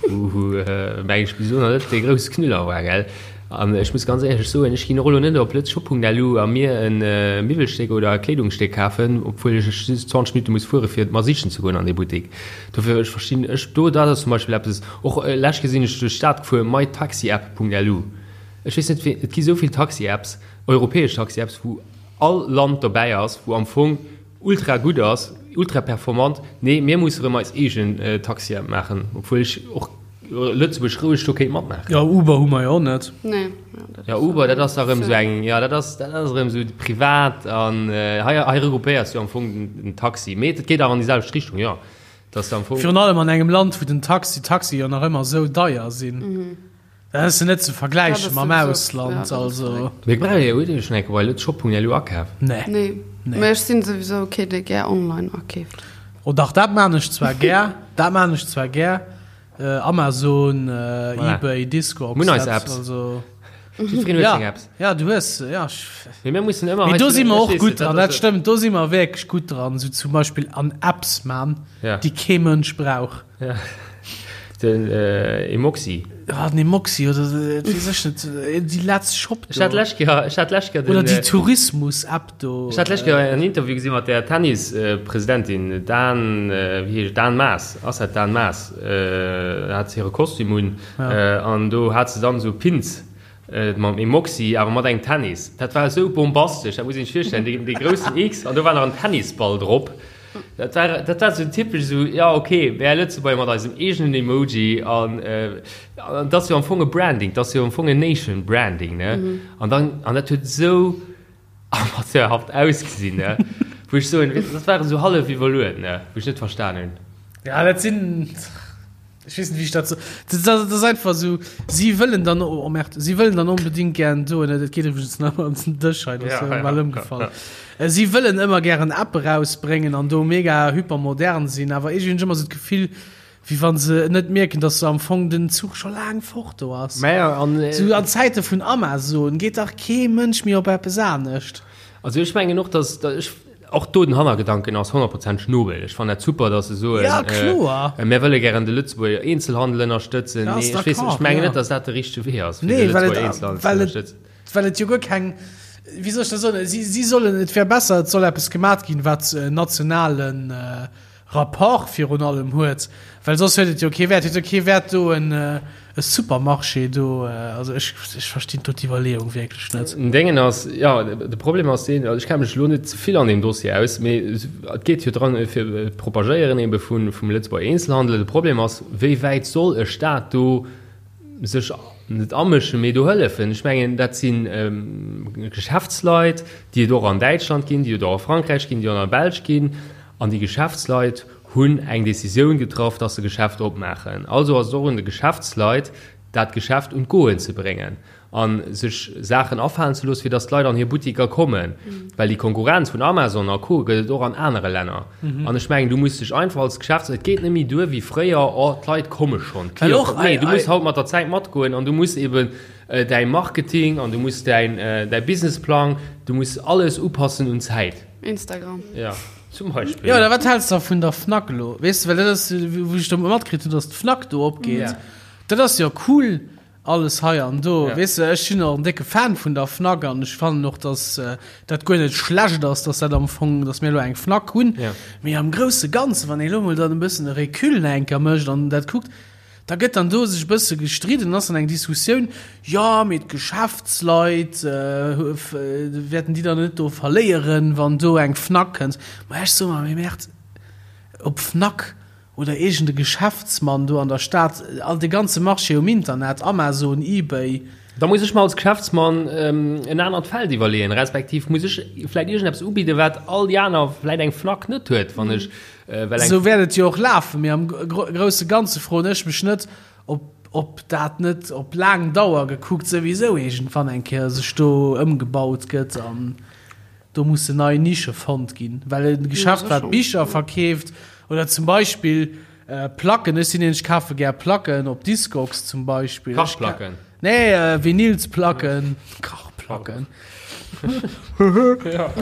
wou meng ech bis elo nach net dee grousse Knüller war, gell. An ech muss ganz éierlech soen, ech ginn och elo net op Letzshop.lu a mir e Miwwelstéck oder e Kleedungsstéck kafen, obwuel ech just 20 Minutte muss fuere fir et mer sichen ze goen an dee Buttek. Dofir, ech verstinn, ech do, dat ass zum Beispill eppes, Och lech gesinn ech duerch d'Stad gefuer, mytaxiapp.lu. Ech weess net wéi, et gi sou vill Taxi-Apps, europäesch Taxi-Apps, wou all Land dobäi ass, wou am Fong ultra gutt ass, ultra performant. Nee, mir musse rëm eis eegen Taxi-App maachen, obwuel ech och Lëtzebuerg roueg do kéint matmaachen. Jo, Uber hu mer jo och net. Nee. Jo, Uber, dat ass da rëm sou eng, jo, dat ass, dat ass erëm sou privat an hei, hei regroupéiers du am Fong den Taxi. Mee et geet awer an déi selwecht Richtung, jo. Virun allem an engem Land, wou den Taxi, d'Taxie jo nach ëmmer esou deier sinn. Dat ass jo net ze vergläiche mam Ausland. Also. Mee brauch Dir, hutt Dir schonn eng Kéier bei lëtzshop.lu akaf? Nee. Nee. Mee ech sinn souwisou kee, dee gär online akeeft. Oh dach, dat maan ech zwar gär. Dat maan ech zwar gär. Amazon, Ebay, Discogs. Mir hunn eis Apps. Also. Jiddwereen huet seng Apps. Ja, du hues, ja. Mee mir mussen ëmmer. Mee do si mer och gutt dran, dat stëmmt. Do si mer wierklech gutt dran, sou zum Beispill an Apps man, déi kee Mënsch brauch. Ja. Den Emoxi. Ja, den Emoxi oder et weess ech net, déi Let's Shop do. Ech hat d'lescht Kéier, ech hat d'lescht Kéier den. Oder déi Tourismus-App do. Ech hat d'lescht Kéier en Interview gesi mat der Tennis-Presidentin Dan, wéi heescht, Dan Maas, ass dat Dan Maas? Hat se hire Kostüm un. An do hat se dann esou Pins mam Emoxi, awer mat engem Tennis. Dat war esou bombastesch, dat muss een sech virstellen, dee, dee groussen X an do war nach en Tennisball drop. Dat war, dat war esou typesch esou, ja okay, mär Lëtzebuerger mat eisem eegenen Emoji an an dat ass jo am Fong e Branding, dat ass jo am Fong en Nation Branding, ne? An dann, an dat huet esou amateurhaft ausgesinn, ne? Wou ech soen, dat war esou hallef iwwerluet, ne? Wou ech net verstan hunn. Ja, dat sinn. Ech weess net, wéi ech dat so. Dat ass einfach esou, si wëllen dann, oh merde, si wëllen dann onbedéngt gären do, dat geet iwwregens nach ëmmer an den Dësch hei, dat ass jo bal ëmgefall. Si wëllen ëmmer gären App erausbréngen an do mega hypermodern sinn, awer iergendwéi hunn ech ëmmer esou d'Gefill, wéi wa se net mierken, datt se am Fong den Zuch scho laang fort do ass. Esou an Zäite vun Amazon geet dach kee Mënsch méi op eppes anescht. Also ech mengen och, datt ech. Och do den Hannergedanken ass honnertprozenteg nobel. Ech fannen dat super, datt se soen, Ja, kloer. mir wëlle gären de Lëtzebuerger Eenzelhandel ënnerstëtzen. Ja, Nee, ass ech weess, d'accord, ech mengen ja. net, datt dat de richtege Wee ass, fir Nee, de well et, Lëtzebuerger Eenzelhandel ze well et, ënnerstëtzen. well et jo guer keng, wéi soll ech dat soen, si, si sollen, et wär besser, et soll eppes gemat ginn, wat en nationalen Rapport virun allem huet, well soss huet et jo kee Wäert, huet jo kee Wäert do en e Supermarché do, also ech ech verstinn do d'Iwwerleeung wierklech net. Den Déngen ass, jo, de Problem ass deen, also ech kenne mech elo net ze vill an deem Dossier aus, mee et geet jo dran fir d'Propagéieren ebe vun vum Lëtzebuerger Eenzelhandel. De Problem ass, wéi wäit soll e Staat do sech net amëschen, mee do hëllefen. Ech mengen, dat si Geschäftsleit, déi et och an Däitschland ginn, déi et och a Frankräich ginn, déi och an der Belsch ginn. An déi Geschäftsleit hunn eng Decisioun getraff, dass se Geschäft opmaachen. Also ass et och un de Geschäftsleit, dat Geschäft un d'Goen ze bréngen a sech Saachen afalen ze loossen, fir dass d'Leit an hir Buttiker kommen. Well déi Konkurrenz vun Amazon a Co. Gëtt et och an anere Länner. An ech mengen, du muss dech einfach als Geschäfts-, et geet net méi duer wéi fréier, oh, d'Leit komme schonn, d'Clienten kommen. Nee, du muss haut mat der Zäit matgoen an du muss eben däi Marketing an du muss däin, däi Businessplang, du muss alles upassen un d'Zäit. Instagram. Ja, zum Beispill. Jo, oder wat häls de vun der Fnac elo? Weess de, well dat ass, wou ech do matkritt hunn, dass d'Fnac do opgeet. Ja. Dat ass jo cool. Alles hei an do. Ja. Weess de, ech sinn och en décke Fan vun der Fnac an ech fannen och, dass dat guer net schlecht ass, dass dat am Fong, dass mir elo eng Fnac hunn. Ja. Mee am grousse Ganze, wann ee elo mol dann e bëssen e Recul nach eng Kéier mécht an dat kuckt, da gëtt dann do sech e bësse gestridden, ass dann eng Diskussioun, jo, mee d'Geschäftsleit wäerten déi dann net do verléieren, wann do eng Fnac kënnt. Ma ech soe mer, mee Merde, ob Fnac oder iergend e Geschäftsmann do an der Stad, all de ganze Marché um Internet, Amazon, Ebay. Da muss ech mer als Geschäftsmann en anert Feld iwwerleeën, respektiv muss ech vläicht iergendeppes ubidden, wat all déi aner, vläicht eng Fnac net huet, wann ech well eng. Esou wäert et jo och lafen, mee am grousse Ganze froen ech mech net, ob ob dat net op laang Dauer gekuckt souwisou iergendwann eng Kéier sech do ëmgebaut gëtt an do mussen nei Nische fonnt ginn, well e Geschäft, wat Bicher verkeeft oder zum Beispill Placken, ech sinn een, ech kafe gär Placken op Discogs zum Beispill. Kachplacken? Nee, Vinylsplacken, Kachplacken.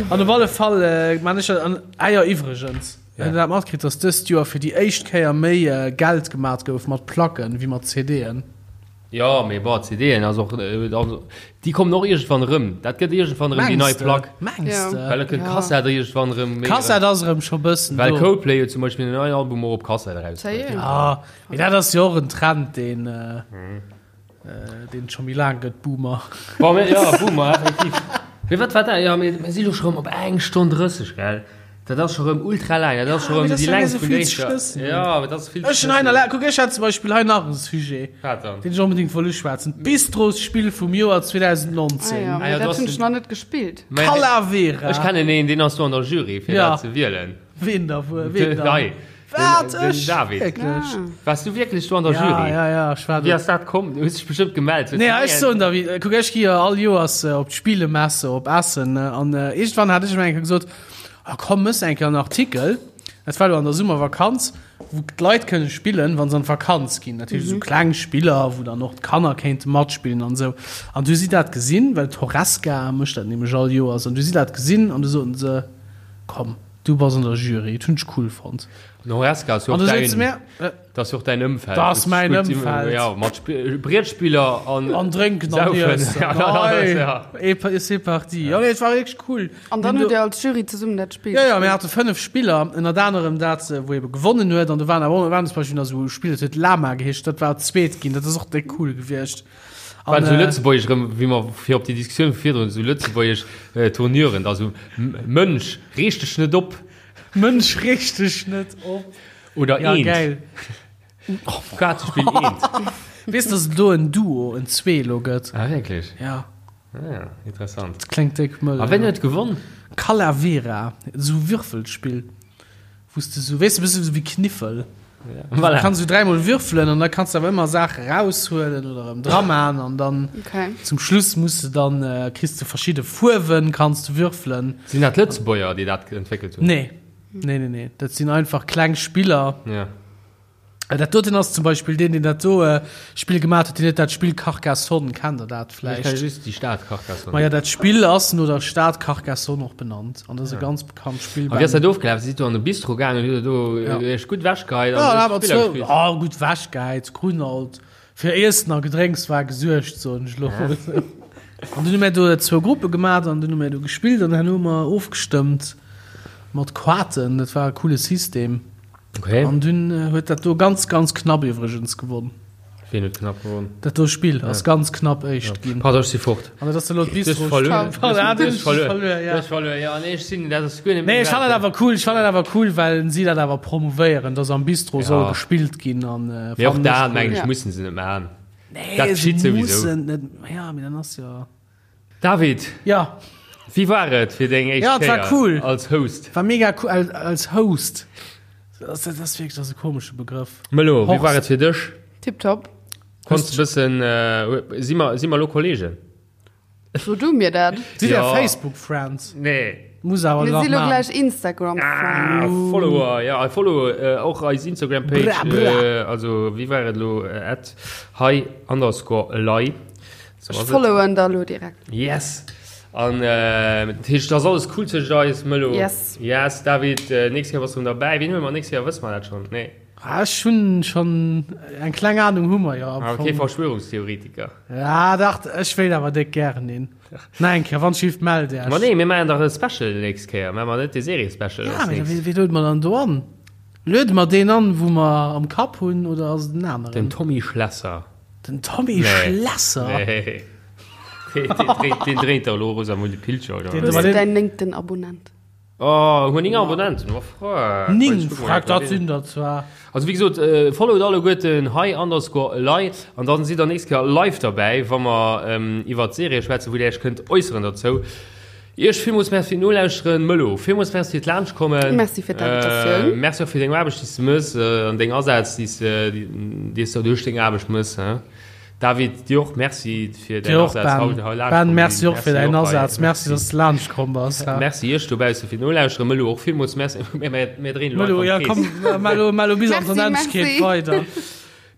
An op alle Fall man ech an, ah jo, iwwregens, hutt Der dat matkritt, datt dëst Joer fir déi éischt Kéier méi Geld gemat gouf mat Placken wéi mat CDen? Jo, mee bon, CDen ass och, also déi kommen och iergendwann erëm. Dat gëtt iergendwann erëm déi nei Plack. Mengs de? Well da kënnt d'Kassett iergendwann erëm méi. D'Kassett ass erëm scho bëssen do. Well Coldplay huet zum Beispill en neien Album och op Kassett erausbruecht. Jo, mee dat ass jo och en Trend, deen, deen et scho méi laang gëtt, Boomer. Bon, mee jo, Boomer, effektiv. Mee wat war dat? Jo, mee mir si lo scho erëm op eng Stonn 30, gell? Dat ass scho rëm ultra laang, dat ass scho rëm déi längst vun der éischter. Ja, awer dat ass vill ze Ech hunn hei nach, kuck, ech hat zum Beispill hei nach e Sujet, Wat dann? deen ech onbedéngt wollt uschwätzen, D'Bistrosspill vum Joer 2019. Ah ja, Ah ja, mee du dat hast hunn ech den- nach net gespillt. Mä Calavera. Ech kennen een, deen ass do an der Jury, fir Ja. dat ze wielen. Ween da wuel? Ween Den, dann? hei, Wat? den, den Ech? David. Wierklech? Ah. Waars du wierklech do an der Ja, Jury? ja, ja, ech war Wéi do. ass dat komm? Du hues dech bestëmmt gemellt. Nee, ech soen der, wéi, kuck, ech gi jo all Joers op d'Spielemesse op Essen, ne, an iergendwann hat ech emol eng Kéier gesot, Ah komm, mëss eng Kéier en Artikel, dat war elo an der Summervakanz, wou d'Leit kënne spillen, wa se an d'Vakanz ginn. Dat heescht esou kleng Spiller, wou dann och d'Kanner kéinte matspillen an esou. An du hu si dat gesinn, well d'Horesca mécht dat nämlech all Joers, an du hu si dat gesinn an du soten se, komm, du bass an der Jury. Dat hunn ech cool fonnt. An Horesca ass jo An och du sot se däin. mir, Dat ass jo och däin Ëmfeld. Dat ass mäin Ëmfeld. Ja, mat Brietspiller an. An drénken an iessen. Ja, et c'est parti. Ja, nee, et war wierklech cool. An dann hutt Dir als Jury zesummen dat Spill gespillt? Jo, jo, mir hate 5 Spiller, ënnert anerem dat, wou ebe gewonnen huet. An do waren awer waren zum Beispill nach esou Spiller, dat huet Lama geheescht, dat war zweet ginn. Dat ass och déck cool gewiescht. An esou lëtzebuergesch erëm, wéi mer fir op déi Diskussioun vu virdrun, esou lëtzebuergesch Tournuren, da sou, Mënsch, reeg dech net op. Mënsch, reeg dech net op. Oder ja, eent. Geil. Kaartespill eent. Weess dass et do en Duo, en Zweelo gëtt? Ah, wierklech? Ja. Ah, ja, interessant. Dat kléngt déck mëll. A wien huet gewonn? Calavera, esou Würfelspill, wou s de sou, weess de, bësse sou wéi Kniffel. Ja. Voilà. Du kanns sou dräimol würfelen an da kanns de awer ëmmer Saache raushuelen oder erëm draman an dann okay. zum Schluss muss de dann, äh, kriss de verschidde Fuerwen, kanns de würfelen. Sinn dat Lëtzebuerger, déi dat entwéckelt hunn? Nee. Nee, nee, nee. Dat sinn einfach kleng Spiller. Ja. Äh, dat doten ass zum Beispill deen, deen dat do äh, Spill gemaat huet, deen huet dat Spill Carcassonne. Kennt der dat vläicht? Ech kenne just déi Stad Carcassonne. Ma ja, dat Spill ass no der Stad Carcassonne och benannt. An dat ass e ganz bekannt Spill. A wéi ass dat ofgelaf? Sidd do an de Bistro gaangen, hutt der do Ja. iech gutt wechgeheit Ja, an awer hutt Spiller zwou, gespillt? oh, gutt wechgeheit, kruten alt fir Iessen a Gedrénks war gesuergt, soen ech elo mol. An dunn hu mir do zwou Gruppe gemaat an dunn hu mir do gespillt an herno hu mer ofgestëmmt. Mat Quaten, dat war e coole System. Okay. An dunn huet dat do ganz, ganz knapp iwwregens gewonn. Wien huet knapp gewonn? Dat do Spill ass ganz knapp éischt ginn. Pardon, ech si fort. An dat ass elo Du hues d'Bistro. verluer. Pardon, Du hues verluer. verluer, ja. Du hues verluer, ja. Nee, ech sinn, dat ass guer net Nee, ech fannen dat meng awer cool, ech fannen dat awer cool, well si dat awer promouvéieren, dass am Bistro Ja. soll gespillt ginn an Mee och fannen ech dat, cool. mengen ech, Ja. mussen se net maachen. Nee, Dat se geschitt souwisou. mussen net, ja, mee dann ass jo. David, Ja. wéi war et fir deng éischt Ja, et war Kéier cool. als Host? War mega cool als, als Host. Das, das ass wierklech das ass e komesche Begrëff. Melo, wéi Horst. war et fir dech? Tipptopp. Konns de bëssen, äh, si mer, si mer lo Kollegen? So du mir dat. Sidd Dir Ja. Facebook Friends? Nee. Muss awer Mir nach si lo maachen. gläich Instagram Ah, Friends. Follower, ja, follow äh, och eis Instagram Page, Bra, bra. äh, also wéi war et lo, äh, at hei underscore elei. So Ech ass et. followen der lo direkt. Yes! An dat heescht, et ass alles cool tëscht eis, Mëllo? Yes. Yes, David, nächst Kéier bass du erëm derbäi. Wien huele mer nächst Kéier? Wësse mer dat schonn? Nee. Ah, ech hunn schonn eng kleng Ahnung hu mer jo am Fong. Kee Verschwörungstheoretiker. Ja, dach, ech wéilt awer déck gären een. Nach eng Kéier, wann schief, mellt Iech. Ma nee, mir maachen dach e Special nächst Kéier. Maache mer net de Serie-Special Ja, mee wéi, wéi luede mer dann do an? Luede mer deen an, wou mer am Kapp hunn, oder ass et en aneren? Den Tommy Schlesser. Den Tommy Schlesser? Nee. Deen dréint der elo Rosamunde Pilcher, oder? Hues du däin néngten Abonnent? Oh, hu mer 9 Abonnenten? Oh, freck. 9, freck, dat sinn der zwar. Also wéi gesot, followt alleguerten hei underscore elei an dann sidd der nächst Kéier live derbäi, wa mer iwwert d'Serie schwätzen, wou dir iech kënnt äusseren dozou. Iech villmools Merci fir d'Nolauschteren. Mëllo, villmools Merci fir d'Laanschtkommen. Merci fir d'Invitatioun. Merci och fir deng Aarbecht, déi s de mëss an deng Asaz, déi s de duerch deng Aarbecht mëss. David, dir och Merci fir däin Asaz haut hei laanscht Ben, merci och fir däin Asaz. Merci, dass de laanscht komm bass. Merci iech dobausse fir d'Nolauschteren. Mëllo, och villmools Merci. Mir dréinen elo einfach am Krees. Mëllo, ja komm, Mello, Mello bis an d'Onendlechkeet weider.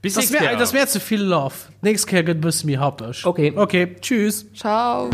Bis nächst Kéier. Dat ass mir ze vill Love. D'nächst Kéier gëtt e bësse méi happeg. Ok. Ok, tschüss. Ciao.